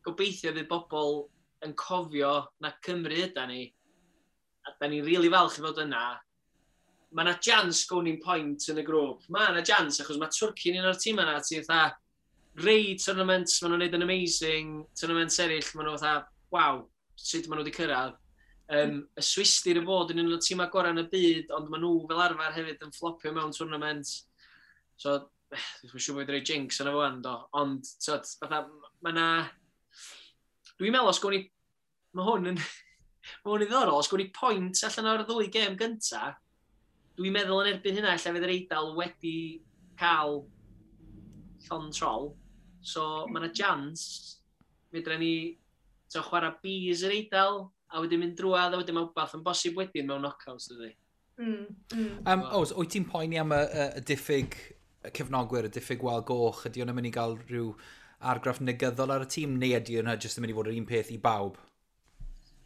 Speaker 3: gobeithio fydd bobl yn cofio na Cymru yda ni, a da ni'n really falch i fod yna. Mae yna chance gown ni'n point yn y grŵp. Mae yna chance, achos mae Twrci'n un o'r tîm yna, ti'n fatha, rei tournaments, maen nhw'n neud yn amazing, tournaments eraill, maen nhw fatha, waw, sut maen nhw wedi cyrraedd. Y Swistir y fod yn un o'r tîmau gorau yn y byd, ond maen nhw fel arfer hefyd yn flopio mewn tournament. So, dwi'n siŵr bod wedi rhoi jinx yna fo do. Ond, so, fatha, mae na... Dwi'n meddwl os gwni. Mae hwn yn ddiddorol, os gwni point allan o'r ddwy gêm gynta, dwi'n meddwl yn erbyn hynna, lle fydd yr Eidal wedi cael llond trol. So, mae yna chance, fedra ni so, chwarae bees yr Eidal, a wedyn mynd drwadd, a wedyn mae wbath yn bosib wedyn mewn knockouts, dydy.
Speaker 1: Oes, wyt ti'n poeni am y diffyg cefnogwyr, y diffyg wal goch? Ydy hwnna'n mynd i gael rhyw argraff negyddol ar y tîm, neu ydy hwnna jyst yn mynd i fod yr un peth i bawb?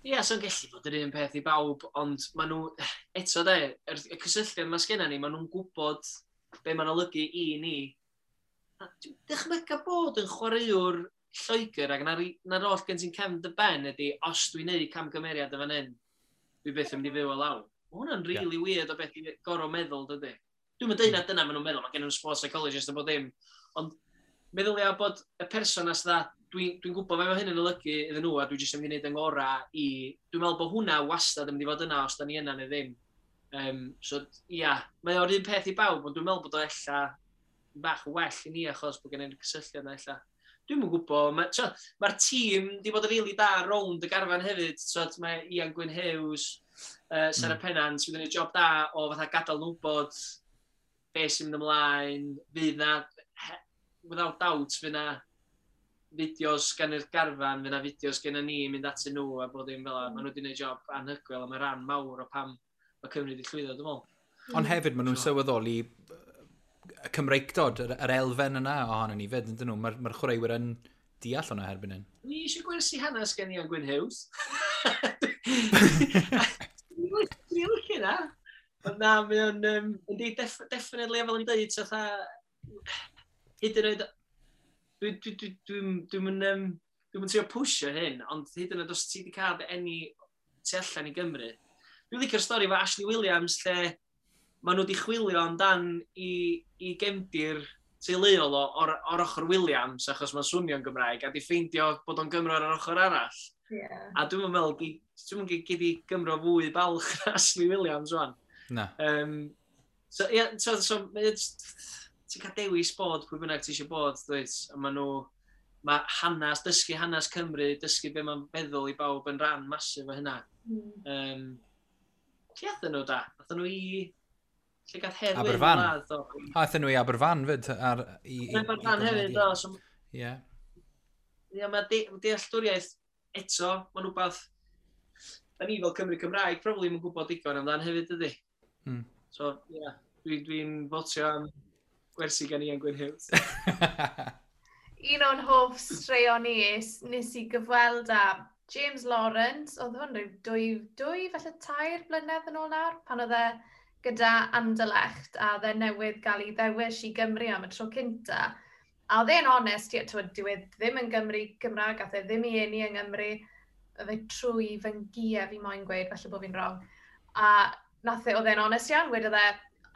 Speaker 3: Ie, yeah, so'n gallu bod yr un peth i bawb, ond maen nhw, eto de, y cysylltiad mae sgenna ni, maen nhw'n gwybod be mae'n olygu i ni. A dwi'n dychmygu bod yn chwaraewr Lloegr ac na'r oll gen ti'n cefn dy ben ydy, os dwi'n neud camgymeriad y fan hyn, dwi byth yn mynd i fyw o lawr. Mae hwnna'n really weird o beth i gorau meddwl, dydy. Dwi'n mynd deud na dyna maen nhw'n meddwl, mae gen nhw'n sports psychologist a bod dim. Ond meddylia bod y person as dda, dwi gwybod be mae hyn yn olygu iddyn nhw a dwi jyst yn mynd i wneud yng ngorau i. Dwi'n meddwl bod hwnna wastad yn mynd i fod yna os da ni yna neu ddim. So, ia, mae o'r un peth i bawb, ond dwi'n meddwl bod o ella bach well i ni achos bod gen i'r cysylltiad yna ella. Dwi'm yn gwybod, mae'r tîm di bod yn rili da rownd y garfan hefyd. So, mae Ian Gwyn Hughes, Sarah Pennant, sydd wedi gwneud job da o fatha gadael nhw wybod be sy'n mynd ymlaen, fydd na, without doubt, fydd na fideos gan yr garfan, fydd na fideos gen ni mynd atyn nhw a bod dim fel 'na. Maen nhw wedi gwneud job anhygoel a mae rhan mawr o pam mae Cymru wedi llwyddo, dwi'n meddwl.
Speaker 1: Ond hefyd, maen nhw'n sylweddoli y Cymreictod, yr elfen yna ohono ni fyd, ydyn nhw? Mae'r chwaraewyr yn deall hwnna erbyn hyn.
Speaker 3: Ni eisiau gwersi hanes gen Ian Gwyn Hughes. Dwi'n licio na. Ond na, mae o'n, yndi, definitely, fel o'n i'n dweud, so fatha, hyd yn oed, dwi'n trio pwysio hyn, ond hyd yn oed os ti wedi cael dy eni tu allan i Gymru. Dwi'n licio'r stori efo Ashley Williams, lle maen nhw wedi chwilio amdan i gefndir teuluol o'r ochr Williams, achos mae'n swnio'n Gymraeg, a di ffeindio bod o'n Gymro ar yr ochr arall. A dwi'n meddwl, dwi'n meddwl gyd i Gymro fwy balch na Ashley Williams, wan.
Speaker 1: Na.
Speaker 3: So, yeah, so ti'n cael dewis bod pwy bynnag ti eisiau bod, dwyt? A maen nhw, mae hanes, dysgu hanes Cymru, dysgu be mae'n feddwl i bawb yn rhan masif o hynna. Lle athyn nhw da? Athyn nhw i... Lle gath Hedd Wyn
Speaker 1: Aberfan.
Speaker 3: ladd, do?
Speaker 1: A aethon nhw i Aberfan fyd.
Speaker 3: Aberfan hefyd, do. So, Ie, mae dealltwriaeth eto, mae'n rhywbeth, da ni fel Cymru Cymraeg, probably yn gwybod digon amdan hefyd, dydy. So, ie, yeah, dwi fotio am gwersi gan Ian Gwyn Hughes.
Speaker 2: Un o'n hoff straeon ni nes i gyfweld â James Lawrence, oedd hwn rhyw 2, falle 3 blynedd yn ôl nawr, pan oedd e gyda Anderlecht a oedd e newydd gael ei ddewis i Gymru am y tro cynta. A oedd e'n onest, ie, t'wod, dyw e ddim yn Gymru Gymraeg, ath e ddim i eni yng Nghymru, fe trwy fy ngia fi moyn gweud, falle bod fi'n wrong. A nath e, oedd e'n onest iawn, wedodd e,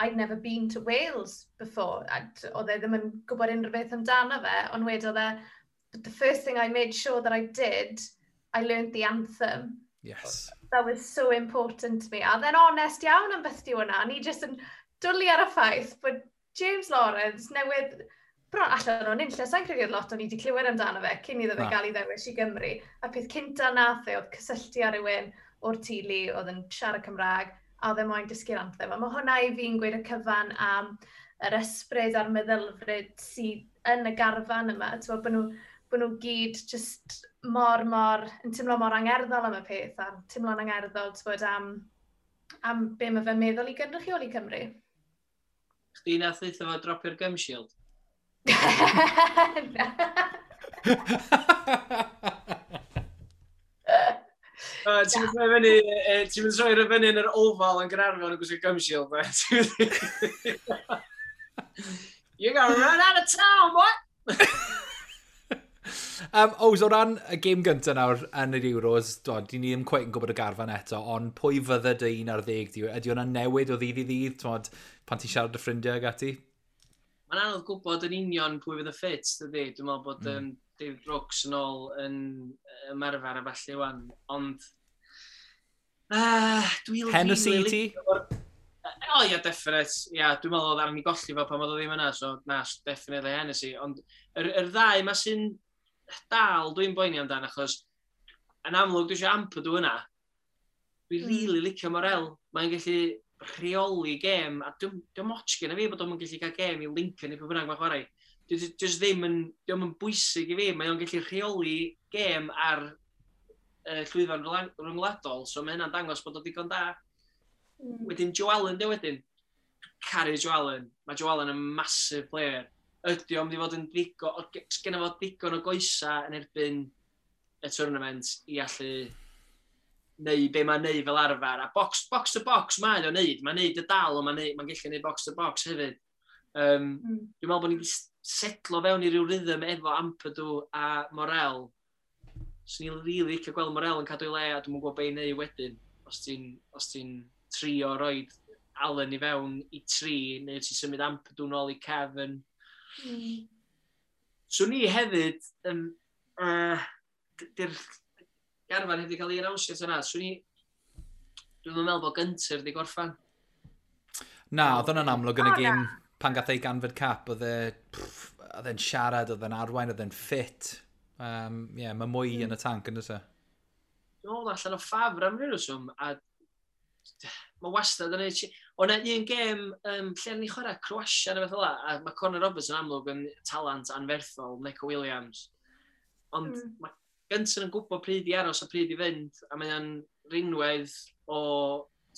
Speaker 2: "I'd never been to Wales before." A oedd e ddim yn gwybod unrhyw beth amdano fe, ond wedodd e, "But the first thing I made sure that I did, I learned the anthem. That was so important to me." A oedd e'n onest iawn am beth di hwnna. Ni jyst yn dwlu ar y ffaith bod James Lawrence newydd bron allan o'n unlle, sa'n credu oedd lot o'n i wedi clywed amdano fe cyn iddo fe
Speaker 1: Na.
Speaker 2: gael ei ddewis i Gymru. A peth cynta nath e oedd cysylltu â rhywun o'r teulu oedd yn siarad Cymraeg a oedd e moyn dysgu'r anthem. A mae hwnna i fi'n gweud y cyfan am yr ysbryd a'r meddylfryd sydd yn y garfan yma. T'mo, bod nhw gyd just mor, mor, yn teimlo mor angerddol am y peth a teimlo'n angerddol, t'mod, am Am be mae fe'n meddwl i gynrychioli Cymru.
Speaker 3: Chdi nath ddeutha fo dropio'r gum shield? Ti'n mynd troi fyny, ti'n mynd troi fyny yn yr Oval yn Gaernarfon yn gwisgo gum shield, man. You're gonna run out of town, boy!
Speaker 1: Ows, o ran y gêm gyntaf nawr yn yr Euros, do, di ni ddim cweit yn gwybod y garfan eto, ond pwy fydde dy 11 di? Ydy hwnna'n newid o ddydd i ddydd, twod, pan ti'n siarad â ffrindiau ag ati?
Speaker 3: Mae'n anodd gwybod yn union pwy fydd y ffit, dydy. Dwi'n meddwl bod David Brooks yn ôl yn ymarfer a falle wan, ond
Speaker 1: dwi'n Hennessy i ti?
Speaker 3: O ia, definite. Ia, dwi'n meddwl oedd arni golli fo pan oedd o ddim yna, so na, definitely Hennessy. Ond yr ddau ma sy'n dal dwi'n boeni amdan, achos yn amlwg dwi eisiau Ampadu yna. Dwi'n really licio Morel. Mae'n gallu rheoli gêm, a dwi'n moch gen i fi bod o'n gallu cael gêm i Lincoln neu pwy bynnag mae'n chwarae. Dwi just ddim yn, dio'm yn bwysig i fi, mae o'n gallu rheoli gêm ar llwyfan rhyngwladol, so mae hynna'n dangos bod o digon da. Wedyn Joe Allen, di wedyn. Caru Joe Allen. Mae Joe Allen yn massive player. Ydy o'n mynd i fod yn ddigon, sgenna fo digon o goesa yn erbyn y tournament i allu neu be mae'n neud fel arfer. A box to box mae o'n neud. Mae'n neud y dal, ond mae'n gallu neud box to box hefyd. Dwi'n meddwl bod ni wedi setlo fewn i ryw rhythm efo Ampadu a Morel. So ni'n really licio gweld Morel yn cadw ei le, a dwi'n gwybod be i neud wedyn. Os ti'n trio roed Allen i fewn i tri, neu ti'n symud Ampadu nôl i Kevin. So ni hefyd, di'r garfan heb wedi cael ei annawnsio yna, so ni, dwi'n meddwl bod Gunter wedi gorffan.
Speaker 1: Na, oedd hwnna'n amlwg yn y gêm pan gath ei ganfed cap, oedd e'n siarad, oedd e'n arwain, oedd e'n ffit. Yeah, mae mwy yn y tank yn dweud.
Speaker 3: Dwi'n meddwl allan o ffafr am ryw reswm, a mae wastad yn ei. O na un gêm lle ni chwarae Croatia neu beth fel 'a, a mae Conor Roberts yn amlwg yn talent anferthol, Neco Williams. Ond mae Gunter yn gwybod pryd i aros a pryd i fynd, a mae o'n rinwedd o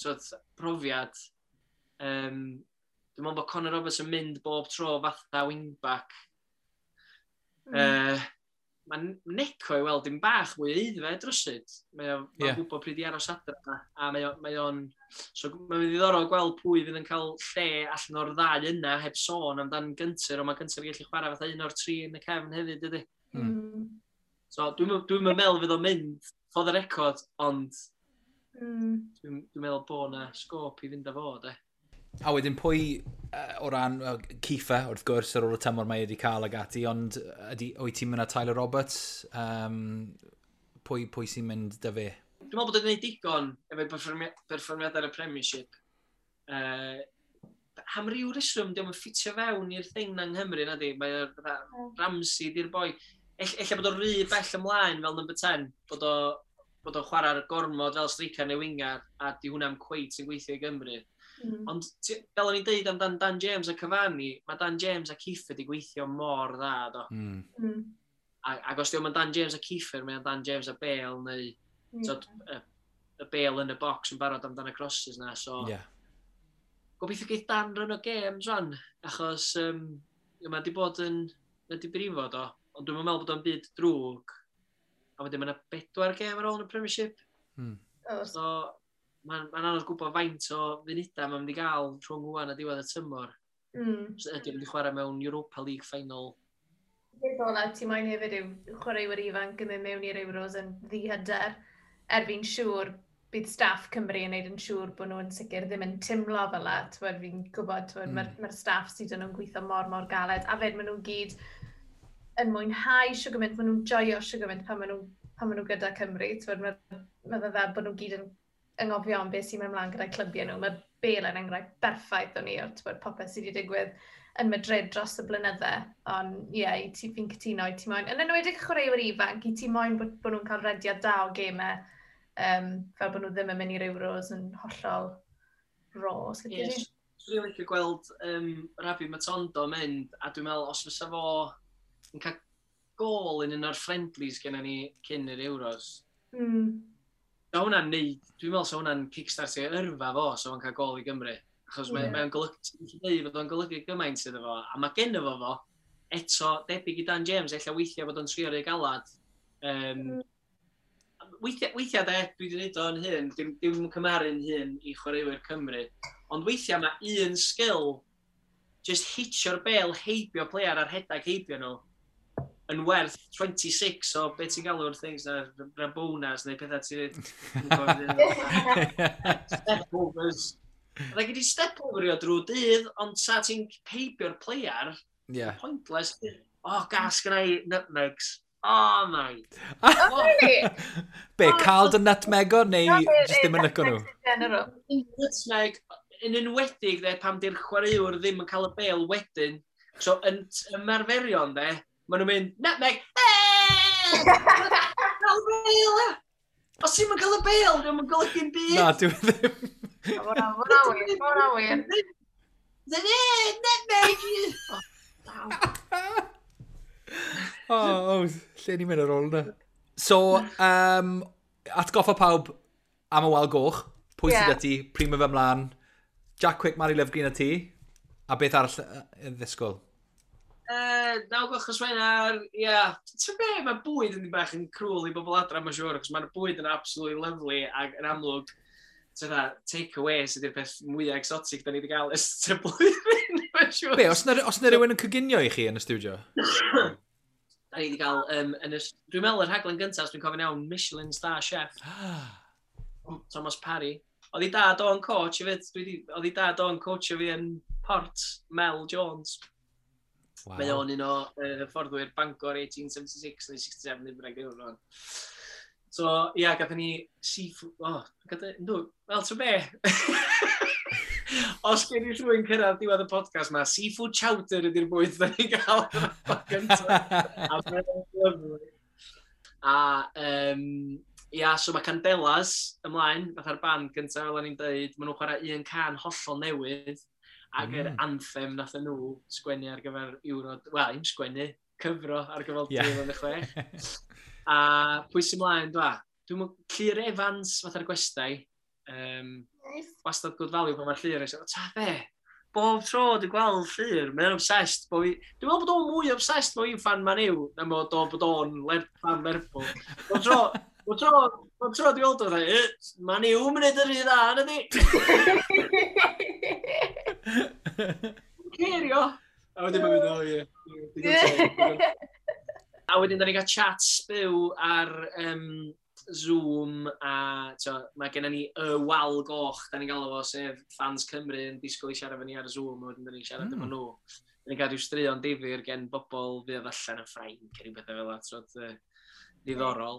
Speaker 3: twod, profiad. Dwi'n meddwl bod Conor Roberts yn mynd bob tro fatha wingback. Mae Neco i weld dim bach mwy aeddfed rywsut. Mae o'n gwybod pryd i aros adra, a mae o'n. So mae'n ddiddorol gweld pwy fydd yn cael lle allan o'r ddau yna heb sôn amdan Gunter, ond mae Gunter yn gallu chwarae fatha un o'r tri yn y cefn hefyd, dydy. So dwi'n meddwl fydd o'n mynd for the record, ond dwi'n meddwl bod na sgôp i fynd â fo, de.
Speaker 1: A wedyn pwy, o ran Kieffer, wrth gwrs, ar ôl y tymor mae wedi cael ag ati, ond ydy, wyt ti'n mynd â Tyler Roberts? Pwy sy'n mynd dy fe?
Speaker 3: Dwi'n meddwl bod o'n gwneud digon efo'i perfformiad ar y Premiership. Am ryw reswm, diolch yn ffitio fewn i'r thing na yng Nghymru, na di. Mae Ramsey di'r boi. Ella bod o'n rhy bell ymlaen fel number 10, bod o'n chwarae'r gormod fel striker neu winger, a di hwnna'n cweit yn gweithio i Gymru. Ond fel o'n i'n deud amdan Dan James a Cavani, mae Dan James a Kieffer di gweithio mor dda, do. Ac os diolch yn Dan James a Kieffer, mae'n Dan James a Bale, neu tod, y Bale yn y box yn barod amdan y crosses na, so gobeithio geith Dan run o games rwan, achos mae di bod yn, mae di brifo do, ond dwi'n meddwl bod o'n byd drwg, a wedyn mae yna 4 gêm ar ôl yn y Premiership. So, mae'n ma anodd gwybod faint o funudau mae'n mynd i gael rhwng wan a diwedd y tymor. So, ydy o'n mynd i chwarae mewn Europa League final.
Speaker 2: Peth ola ti moyn hefyd yw chwaraewyr ifanc yn mynd mewn i'r Euros yn ddihyder. Er fi'n siŵr bydd staff Cymru yn neud yn siŵr bod nhw'n sicr ddim yn timlo fel la. T'wod, fi'n gwybod, t'wod, mae'r staff sydd yn nhw'n gweithio mor, mor galed. A fed maen nhw gyd yn mwynhau siw gymaint, maen nhw'n joio siw gymaint pan maen nhw gyda Cymru. T'wod, mae fe fel bod nhw gyd yn anghofio am beth sy'n mynd ymlaen gyda'i clybiau nhw. Mae Bale yn enghraifft berffaith o'n i o'r t'wod, popeth sydd wedi digwydd yn Madrid dros y blynydde. Ond ie, yeah, i ti fi'n cytuno, i ti moyn, yn enwedig chwaraewyr ifanc, i ti moyn bod nhw'n cael rediad da o gemau, fel bod nhw ddim yn mynd i'r Euros yn hollol raw. Os lici di.
Speaker 3: Swn i'n licio gweld Rabbi Matondo mynd, a dwi'n meddwl os fysa fo yn cael gol yn un o'r friendlies gennym ni cyn yr Euros, So hwnna'n neud, dwi'n meddwl so hwnna'n kickstart i yrfa fo, so fo'n cael gol i Gymru. Achos mae'n mae golygu, ti'n dweud fod o'n golygu gymaint iddo fo, a mae genno fo, eto, debyg i Dan James, ella weithiau bod o'n trio rei galad. Weithiau de, dwi wedi gwneud o'n hyn, dim cymharu'n hyn i chwaraewyr Cymru, ond weithiau mae un sgil, just hitio'r bel heibio player a'r rhedag heibio nhw, yn werth 26 o beth ti'n galw'r things na, Rabonas neu pethau ti'n... Step overs. Like, i step over i o drwy dydd, ond sa ti'n heibio'r player, pointless. Oh, gas gyda i nutmegs. Oh, my.
Speaker 2: Oh, really?
Speaker 1: Be, cael dy nutmego neu jyst ddim yn licio nhw?
Speaker 3: Nutmeg, yn enwedig, de, pam di'r chwaraewr ddim yn cael y bel wedyn. So, yn ymarferion, de, maen nhw'n mynd, nutmeg, eeeeh! Cael y bel, e! Os ti'n mynd cael y bel, dwi'n mynd golygu'n byd.
Speaker 1: Na, dwi'n ddim.
Speaker 2: Hwna wir, hwnna wir.
Speaker 3: Nutmeg!
Speaker 1: Oh, lle ni'n mynd ar ôl yna? So, atgoffa pawb am y wal goch. Pwy sydd â ti? Pryd mae fe ymlaen? Jack Quick, Mari Lyfgreen a ti? A beth arall yn ddisgwyl?
Speaker 3: 9 gloch nos Wener, ie. Yeah. Ti'n be, mae bwyd yn bach yn cruel i bobl adra, mae'n siŵr, achos mae'r bwyd yn absolutely lovely ac yn amlwg, take away sydd yw'r peth mwyaf exotic da ni wedi cael ers y blwyddyn, mae'n siŵr.
Speaker 1: Be, os na rhywun yn coginio i chi yn y studio?
Speaker 3: Da ni wedi cael, dwi'n meddwl y rhaglen gyntaf, os dwi'n cofio'n iawn, Michelin Star Chef. Thomas Parry. Oedd ei dad o'n coach hefyd, oedd ei dad o'n coach fi yn Port, Mel Jones.
Speaker 1: Wow.
Speaker 3: Mae o'n un o hyfforddwyr Bangor 1876 neu 67, neu bynnag ddim yn. So, ia, yeah, gathon ni seafood... Oh, wel, ti'n be? Os gen i rhywun cyrraedd diwedd y podcast ma, seafood chowder ydy'r bwyd da ni'n gael gyntaf. A mae'n lyfli. A, ia, so mae Candelas ymlaen, fatha'r band gyntaf, fel o'n i'n dweud, maen nhw'n chwarae un can hollol newydd, ac yr anthem nath nhw sgwennu ar gyfer Euro... Wel, im sgwennu, cyfro ar gyfer 2006. A pwy sy'n mlaen, dwa? Dwi'n meddwl, Llyr Evans, fatha'r gwestai.
Speaker 2: Nice.
Speaker 3: Wastad good value pan mae'r Llyr. Ta be? Bob tro dwi'n gweld Llyr, mae'n obsessed. Dwi'n meddwl bod o'n mwy obsessed bod fi'n fan Man U na bod o'n fan Lerpwl. Bob tro dwi'n gweld o'n dweud, Man U mynd yr un dda, na di? Cerio! A wedyn mae'n mynd, o ie. A wedyn, da ni'n cael chats byw ar Zoom, a mae gennym ni y wal goch, da ni'n galw fo, sef fans Cymru yn disgwyl i siarad efo ni ar Zoom, a wedyn da ni'n siarad efo nhw. Da ni'n cael rhyw straeon difyr gen bobl fydd allan yn Ffrainc, neu rhywbeth fel 'na, ddiddorol.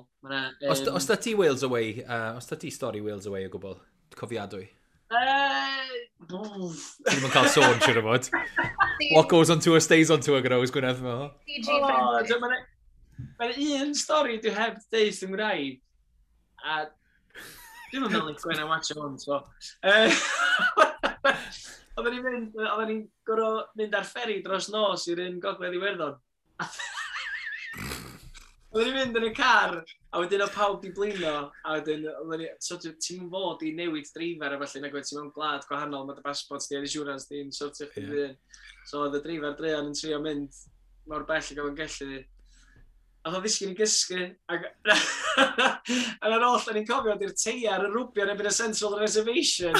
Speaker 1: Os da ti Wales Away, os da ti stori Wales Away o gwbl, cofiadwy? Ti ddim yn cael sôn, siwr o fod. What goes on tour stays on tour gyda Ows Gwynedd.
Speaker 2: PG friendly.
Speaker 3: Mae'n un stori dwi heb deud yn Gymraeg. A dwi'n meddwl i Gwen a watch hwn, so. Oedden ni'n gorfod mynd ar fferi dros nos i'r un Gogledd Iwerddon. Oedden ni'n mynd yn y car, a wedyn oedd pawb di blino, a wedyn, so ti'n fod i newid dreifar a felly, nag oed ti'n mewn gwlad gwahanol, mae dy passport di a'r insurance di'n sortio chdi yeah. So oedd y dreifar druan yn trio mynd mor bell ag oedd o'n gallu. A oedd o ddisgyn i gysgu, ac a ar ôl, da ni'n cofio, di'r teiar yn rwbio yn erbyn y central reservation.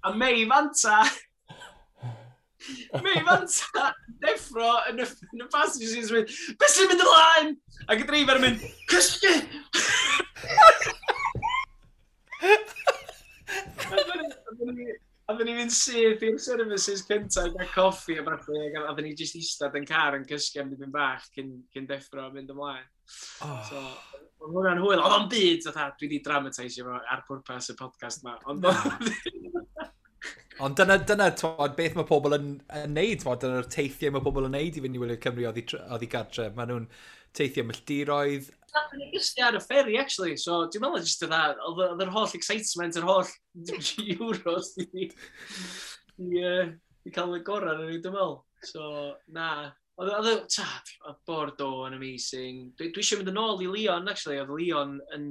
Speaker 3: A Mei Fanta deffro yn y passenger seat yn mynd, beth sy'n mynd ymlaen? Ac y dreifar yn mynd, cysgu! A dyn ni'n mynd syth i'r services cyntaf i gael coffi a falle, a dyn ni jyst eistedd yn car yn cysgu am dipyn bach cyn deffro a mynd ymlaen.
Speaker 1: Oh.
Speaker 3: So, oedd hwnna'n hwyl. Oedd o'n byd, fatha, dwi wedi dramatisio fo ar pwrpas y podcast ma. Ond
Speaker 1: Ond dyna twod, beth mae pobl yn neud, twod, dyna'r teithiau mae pobl yn neud i fynd i wylio Cymru oddi gartre. Maen nhw'n teithio milltiroedd.
Speaker 3: Nathon ni gysgu ar y ferry, actually. So, dwi'n meddwl jyst oedd yr holl excitement, yr holl Euros di cael y gorau yn ni, dwi'n meddwl. So, na. Oedd Bordeaux yn amazing. Dwi eisiau mynd yn ôl i Lyon, actually. Oedd Lyon yn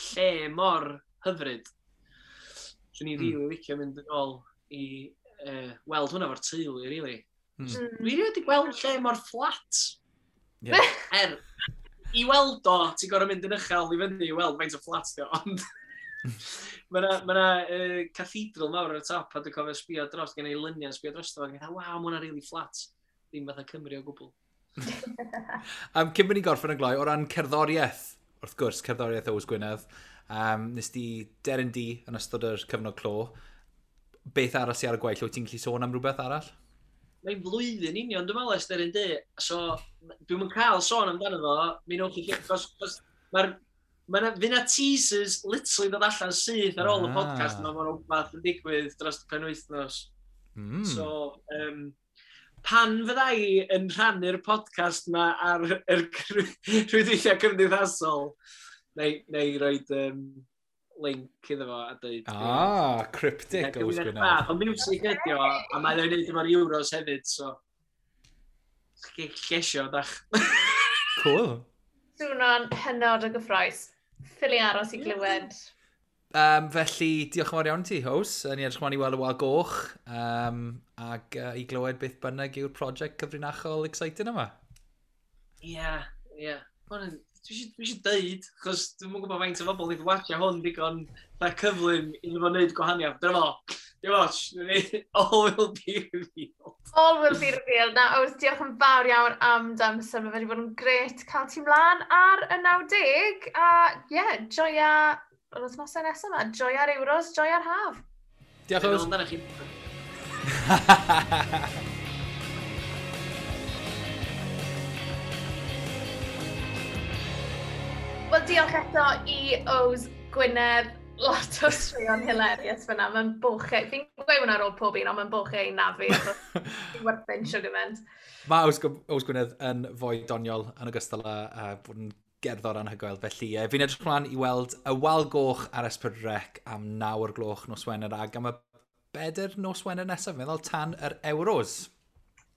Speaker 3: lle mor hyfryd. Swn i'n rili licio mynd yn ôl i weld hwnna fo'r teulu, really. Dwi rioed wedi gweld lle mor fflat.
Speaker 1: Yeah.
Speaker 3: I weld o, ti'n gorfod mynd yn uchel i fyny i weld faint o fflat di o, ond mae yna ma cathedral mawr ar y top, a dwi'n cofio sbio dros, gen i luniau sbio dros, a dwi'n waw, mae hwnna really fflat. Ddim fatha Cymru o gwbl.
Speaker 1: Cyn bod ni'n gorffen yn gloi, o ran cerddoriaeth, wrth gwrs, cerddoriaeth Ows Gwynedd, nes di Deryn Du yn ystod yr cyfnod clo. Beth arall sydd ar y gwaill? Wyt ti'n gallu sôn am rhywbeth arall?
Speaker 3: Mae'n flwyddyn union, dwi'n meddwl, ers Deryn Du. So, dwi'm yn cael sôn amdano fo. Mi newch chi... Cos mae'r... Mae fydd 'na teasers literally dod allan syth ar ôl y podcast yma, mae'n rhywbeth yn digwydd dros y penwythnos. So, pan fydda i yn rhannu'r podcast yma ar yr rhwydweithiau cymdeithasol, neu roed link iddo fo a dweud...
Speaker 1: Ah, cryptic Ows Gwynedd.
Speaker 3: Ond music ydi o, a mae o'n neud efo'r Euros hefyd, so... Llesio, dach.
Speaker 1: Cool.
Speaker 2: Sŵno'n hynod o gyffrous. Ffili aros i glywed.
Speaker 1: Felly, diolch yn fawr iawn ti, Ows. Ni edrych ymlaen i weld y wal goch ac i glywed beth bynnag yw'r prosiect cyfrinachol exciting yma.
Speaker 3: Ie, ie. Dwi eisiau deud, chos dwi'm yn gwybod faint o bobl wedi watcha hwn digon da cyflym iddo fo wneud gwahaniaeth. Dyna fo, dim ots, all will be revealed.
Speaker 2: All will be revealed. Na, Ows, diolch yn fawr iawn am dy amser. Mae wedi bod yn gret cael ti mlaen ar y 90. A ie, yeah, joia yr wythnosau nesaf yma. Joia'r Euros, joia'r haf.
Speaker 1: Diolch, Ows.
Speaker 3: Amdano chi.
Speaker 2: Wel, diolch eto i Ows Gwynedd. Lot o straeon hilarious fyna. Mae'n bochau. Fi'n gweud hwnna ar ôl pob un, ond mae'n bochau i nafu. Fi'n werthu'n sugarment.
Speaker 1: Mae Ows Gwynedd yn fwy doniol yn ogystal â bod yn gerddor anhygoel. Felly, fi'n edrych ymlaen i weld y Wal Goch ar S4C am 9 o'r gloch nos Wener ac am y 4 nos Wener nesaf, meddwl tan yr Euros.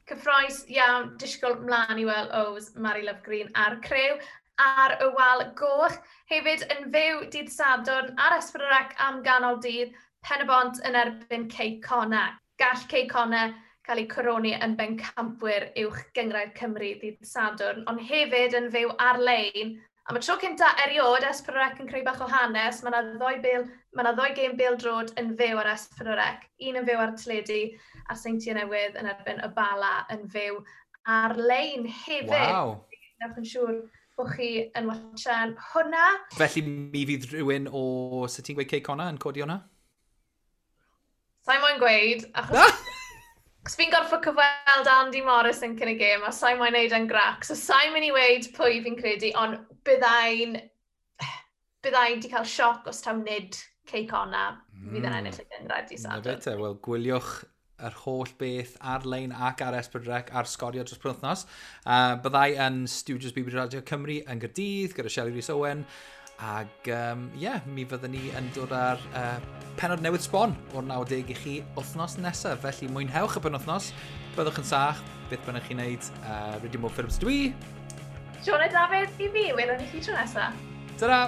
Speaker 2: Cyffroes iawn, disgwyl mlaen i weld Ows, Mari Love Green a'r crew ar y Wal Goch. Hefyd yn fyw dydd Sadwrn ar S4C am ganol dydd, Pen-y-bont yn erbyn Cei Connah. Gall Cei Connah cael eu coroni yn bencampwyr uwch gynghrair Cymru ddydd Sadwrn, ond hefyd yn fyw ar-lein. Am y tro cynta erioed, S4C yn creu bach o hanes, mae yna ddoi gêm bêl-droed yn fyw ar S4C, un yn fyw ar teledu a'r Seintiau Newydd yn erbyn y Bala yn fyw ar-lein hefyd.
Speaker 1: Wow.
Speaker 2: Newch yn siŵr bod chi yn watchan hwnna.
Speaker 1: Felly mi fydd rhywun o, sut ti'n gweud Cei Connah yn codi hwnna?
Speaker 2: Sa'i moyn gweud, achos fi'n gorfod cyfweld Andy Morris yn cyn y gêm, a sa'i moyn neud yn grac, so sa'i mynd i weud pwy fi'n credu, ond byddai'n di cael sioc os taw nid Cei Connah fydd yn ennill y gynghrair dydd Sadwrn.
Speaker 1: Na fe te, wel gwyliwch yr holl beth ar-lein ac ar S4C ar Sgorio dros penwythnos. Byddai yn Studios BBC Radio Cymru yn Gaerdydd gyda Shelley Rees Owen. Ac mi fyddwn ni yn dod ar pennod newydd sbon o'r 90 i chi wythnos nesaf. Felly mwynhewch y penwythnos, byddwch yn saff, beth bynnag chi'n neud. Rydym o Phillips dwi.
Speaker 2: Siôn a Dafydd i fi, welwn ni chi tro nesaf.
Speaker 1: Ta-ra!